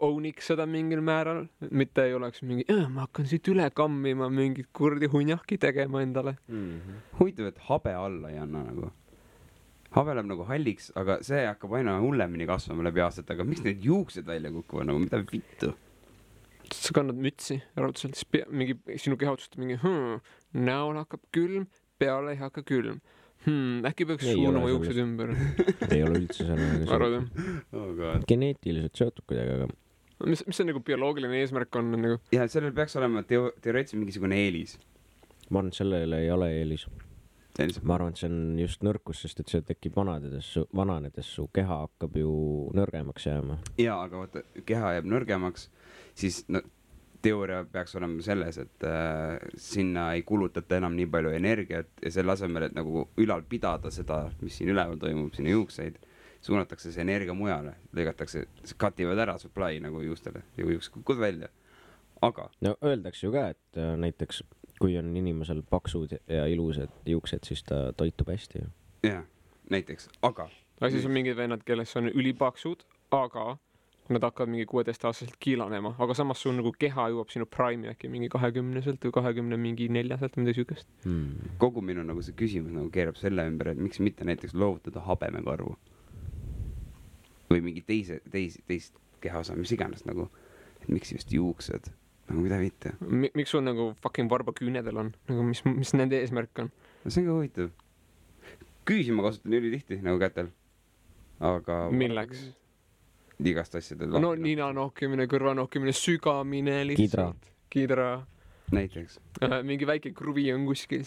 owniks seda mingil määral, mitte ei oleks mingi, ma hakkan siit üle kammima mingit kurdi hunjahki tegema endale. Huvitav, et habe alla ei anna nagu. Habe läheb nagu halliks, aga see hakkab aina hullemini kasvama läbi aastat, aga miks need juuksed välja kukuvad, nagu mida vittu? Sa kannad mütsi raudselt, siis mingi sinu keha otsustab mingi, näol hakkab külm, peale ei hakka külm. Äkki peaks suunama juuksed ümber. Ei ole üldse selle. Geneetiliselt seotud kuidagi, aga... Mis see nagu bioloogiline eesmärk on? Nagu... Ja sellel peaks olema teoreetiliselt mingisugune eelis. Ma arvan, et sellele ei ole eelis. Ma arvan, et see on just nõrkus, sest et see tekib vananedes su keha hakkab ju nõrgemaks jääma. Jaa, aga vaata, keha jääb nõrgemaks, siis teooria peaks olema selles, et sinna ei kulutata enam nii palju energiat ja selle asemel, et nagu ülal pidada seda, mis siin üleval toimub, sinna juukseid, suunatakse see energia mujale, lõigatakse, kativad ära supply nagu juustele ja juuksed kukud välja. Aga... No öeldakse ju ka, et näiteks kui on inimesel paksud ja ilusad juuksed, siis ta toitub hästi. Jah, näiteks, aga... Siis on mingid vennad, kelles on ülipaksud, aga nad hakkavad mingi 16-aastaselt kiilanema, aga samas sul nagu keha jõuab sinu prime äkki mingi 20-selt või 24-selt või midagi sükest. Kogu minu nagu see küsimus nagu keerab selle ümber, et miks mitte näiteks loovutada habemekarvu või mingi teist kehaosa, mis iganes nagu, et miks just juuksed, nagu mida mitte. Miks sul nagu fucking varbaküünedel on, nagu mis nende eesmärk on? No see on ka huvitav. Küüsi ma kasutan üli tihti nagu kätel, aga... Milleks? Igast asjadel. No nina nohkimine, kõrva nohkimine, sügamine lihtsalt. Kidra. Näiteks. Mingi väike kruvi on kuskil.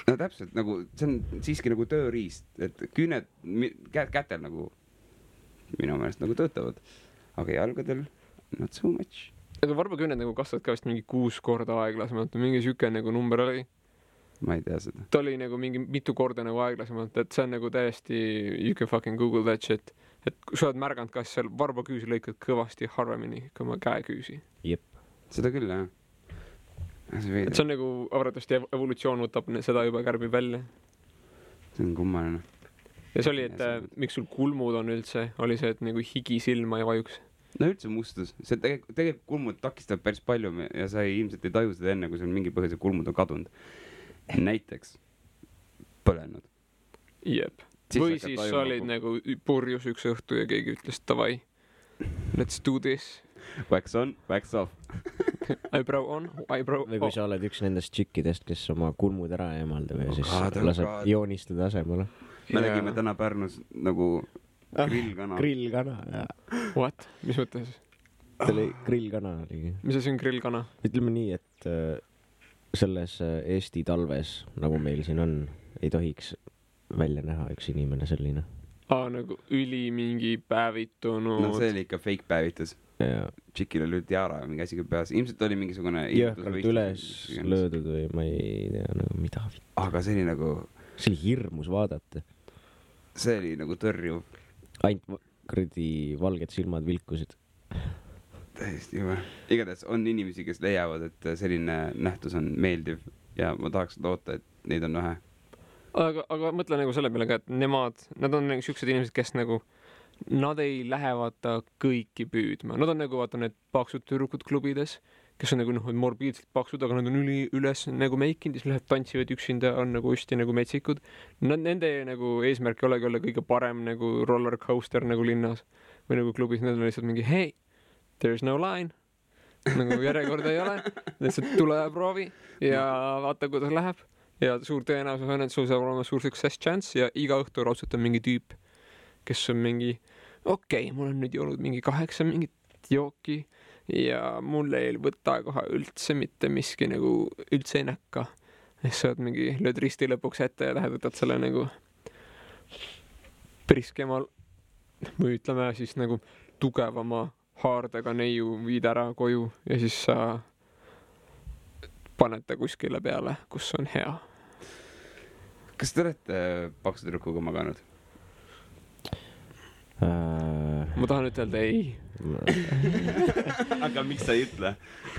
No täpselt, nagu see on siiski nagu tööriist, et küüned kätel nagu minu meelest nagu töötavad, aga jalgadel not so much. Aga varbaküüned nagu kasvavad ka vist mingi 6 korda aeglasemalt, mingi süke nagu number oli. Ma ei tea seda. Ta oli nagu mingi mitu korda nagu aeglasemalt, et see on nagu täiesti, you can fucking google that shit. Et kui sa oled märganud, kas seal varbaküüsi lõikad kõvasti harvemini kui oma käeküüsi. Jep. Seda küll, jah. Et see on nagu arvatavasti evolutsioon võtab seda juba kärbib välja. See on kummaline. Ja see oli, et miks sul kulmud on üldse, oli see, et nagu higi silma ei vajuks. No üldse mustus. See tegelikult kulmud takistab päris palju ja sa ilmselt ei taju seda enne, kui sul mingi põhjuse kulmud on kadunud. Näiteks põlenud. Jep. Või siis sa olid nagu purjus üks õhtu ja keegi ütles, davai, let's do this. Wax on, wax off. Eyebrow on, eyebrow off. Või kui sa oled üks nendest tšikkidest, kes oma kulmud ära eemaldab ja siis laseb joonistada asemele. Me nägime täna Pärnus nagu grillkana. Grillkana, jah. What? Mis mõttes? See oli grillkana. Mis asi on grillkana? Ütleme nii, et selles Eesti talves, nagu meil siin on, ei tohiks välja näha üks inimene selline. Nagu üli mingi päevitunud. No see oli ikka fake päevitus. Tšikil oli tiara ja mingi asi peas. Ilmselt oli mingisugune... Jõhkalt üles löödud või ma ei tea, nagu mida. Aga see oli nagu... See oli hirmus vaadata. See oli nagu tõrjuv. Ainult kuradi valged silmad vilkusid. täiesti juhe. Igatahes on inimesi, kes leiavad, et selline nähtus on meeldiv ja ma tahaks loota, et neid on vähe. Aga mõtle nagu selle peale ka, et nad on nagu siuksed inimesed, kes nagu, nad ei lähe vaata kõiki püüdma. Nad on nagu vaata need paksud tüdrukud klubides, kes on nagu morbiidselt paksud, aga nad on üles nagu meikinud, siis lähevad tantsivad üksinda, on nagu hästi nagu metsikud. Nende nagu eesmärk ei olegi olla kõige parem nagu roller coaster nagu linnas või nagu klubis. Need on lihtsalt mingi, hey, there's no line. Nagu järjekorda ei ole. Lihtsalt tule ja proovi ja vaata, kuidas läheb. Ja suur tõenäosus on, et sul saab olema suur success chance ja iga õhtu raudselt on mingi tüüp, kes on mingi, okei, mul on nüüd joonud mingi 8 mingit jooki ja mul ei võta kohe üldse mitte miski nagu üldse ei näkka. Ja sa mingi, lööd risti lõpuks ette ja lähed võtad selle nagu priskemal või ütleme siis nagu tugevama haardega neiu viid ära koju ja siis sa panete kuskile peale, kus on hea. Kas te olete paksu tüdrukuga maganud? Ma tahan ütelda ei. Aga miks sa ei ütle?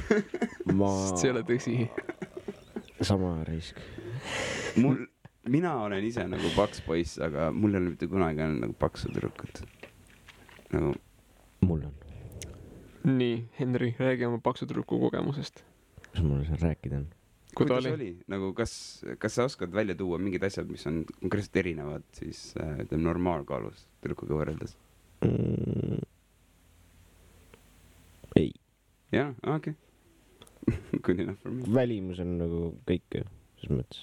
Sest see ei ole tõsi. Sama risk. Mina olen ise nagu paks poiss, aga mul ei ole mitte kunagi olnud nagu paksu tüdrukut. Nagu... Mul on. Nii, Henri, räägi oma paksu tüdruku kogemusest. Mis mul seal rääkida on? Kuidas oli? Nagu, kas sa oskad välja tuua mingid asjad, mis on konkreetselt erinevad siis normaalkaalus tüdrukuga võrreldes? Ei. Jah, okei. Good enough for me. Välimus on nagu kõik, ses mõttes.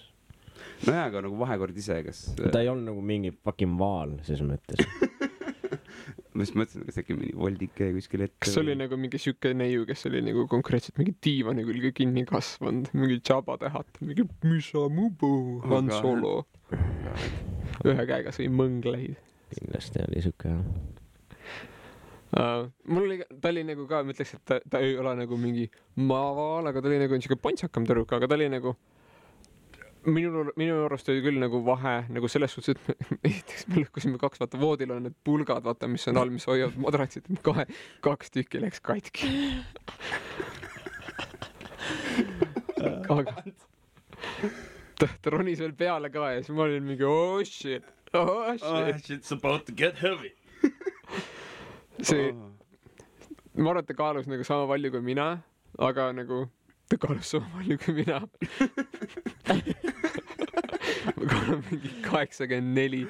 No jaa, aga nagu vahekord ise, kas... Ta ei olnud nagu mingi fucking vaal, ses mõttes. Ma just mõtlesin, kas äkki mingi voldike kuskil ette. Kas oli nagu mingi süke neiu, kes oli nagu konkreetselt mingi diivani külge kinni kasvanud, mingi Jabba-tähat, mingi Misamubu, Han Solo. Ühe käega sõi mõngleid. Kindlasti oli süke, jah. Mul oli, ta oli nagu ka, ma ütleks, et ta ei ole nagu mingi maavaal, aga ta oli nagu niisugune pontsakam tüdruk, aga ta oli nagu minu arust oli küll nagu vahe nagu selles suhtes, et me lõhkusime 2 vaata voodil on need pulgad vaata, mis on all, mis hoiavad madratsid, 2 tükki läks katki. Aga ta ronis veel peale ka ja siis ma olin mingi oh shit, shit's about to get heavy. See ma arvan, et ta kaalus nagu sama palju kui mina, aga nagu ta kaalus sama palju kui mina. Ma kaalun mingi 84.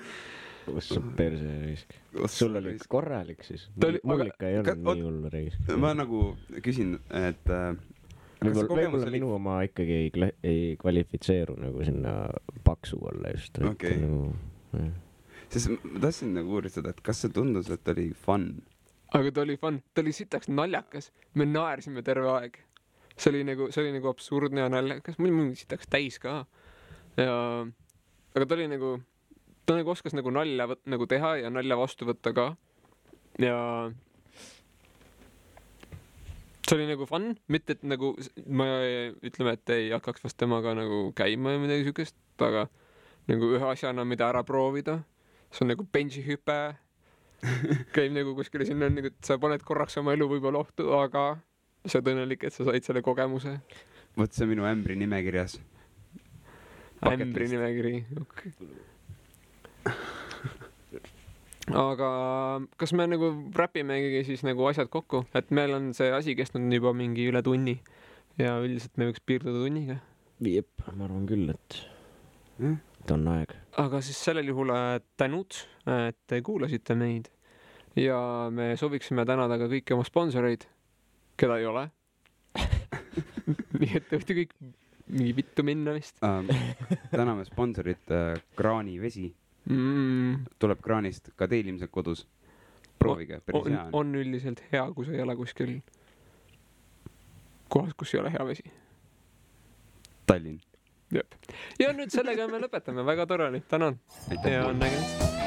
Kus on perse risk? Sul oli korralik siis? Mul ikka ei olnud nii hullu risk. Ma nagu küsin, et võib-olla minu oma ikkagi ei kvalifitseeru nagu sinna paksu olla just. Okei. Sest ma tahtsin nagu uuristada, et kas see tundus, et oli fun? Aga ta oli fun. Ta oli sitaks naljakas. Me naersime terve aeg. See oli nagu absurdne ja naljakas. Mul sitaks täis ka. Aga ta oli nagu, ta nagu oskas nagu nalja nagu teha ja nalja vastu võtta ka. Ja see oli nagu fun, mitte et nagu ma ütleme, et ei hakkaks vast temaga nagu käima ja midagi sükest, aga nagu ühe asjana, mida ära proovida. See on nagu benchihüpe. Käib nagu kuskile sinna, nagu, et sa paned korraks oma elu võib-olla ohtu, aga sa oled õnnelik, et sa said selle kogemuse. Võt see minu ämbri nimekirjas. Ämbri nimekiri, okei. Aga kas me nagu räpimegi siis nagu asjad kokku, et meil on see asi kestnud juba mingi üle tunni ja üldiselt me võiks piirduda tunniga? Jep, ma arvan küll, et on aeg. Aga siis sellel juhul tänud, et kuulasite meid ja me sooviksime tänada ka kõiki oma sponsoreid, keda ei ole. Nii et võite kõik mingi vittu minna vist. Täname sponsorit kraanivesi. Tuleb kraanist ka teil ilmselt kodus. Proovige, päris hea. On üldiselt hea, kui sa ei ole kuskil kohas, kus ei ole hea vesi. Tallinn. Jep. Ja nüüd sellega me lõpetame. Väga tore oli. Tänan. Ja nägemist.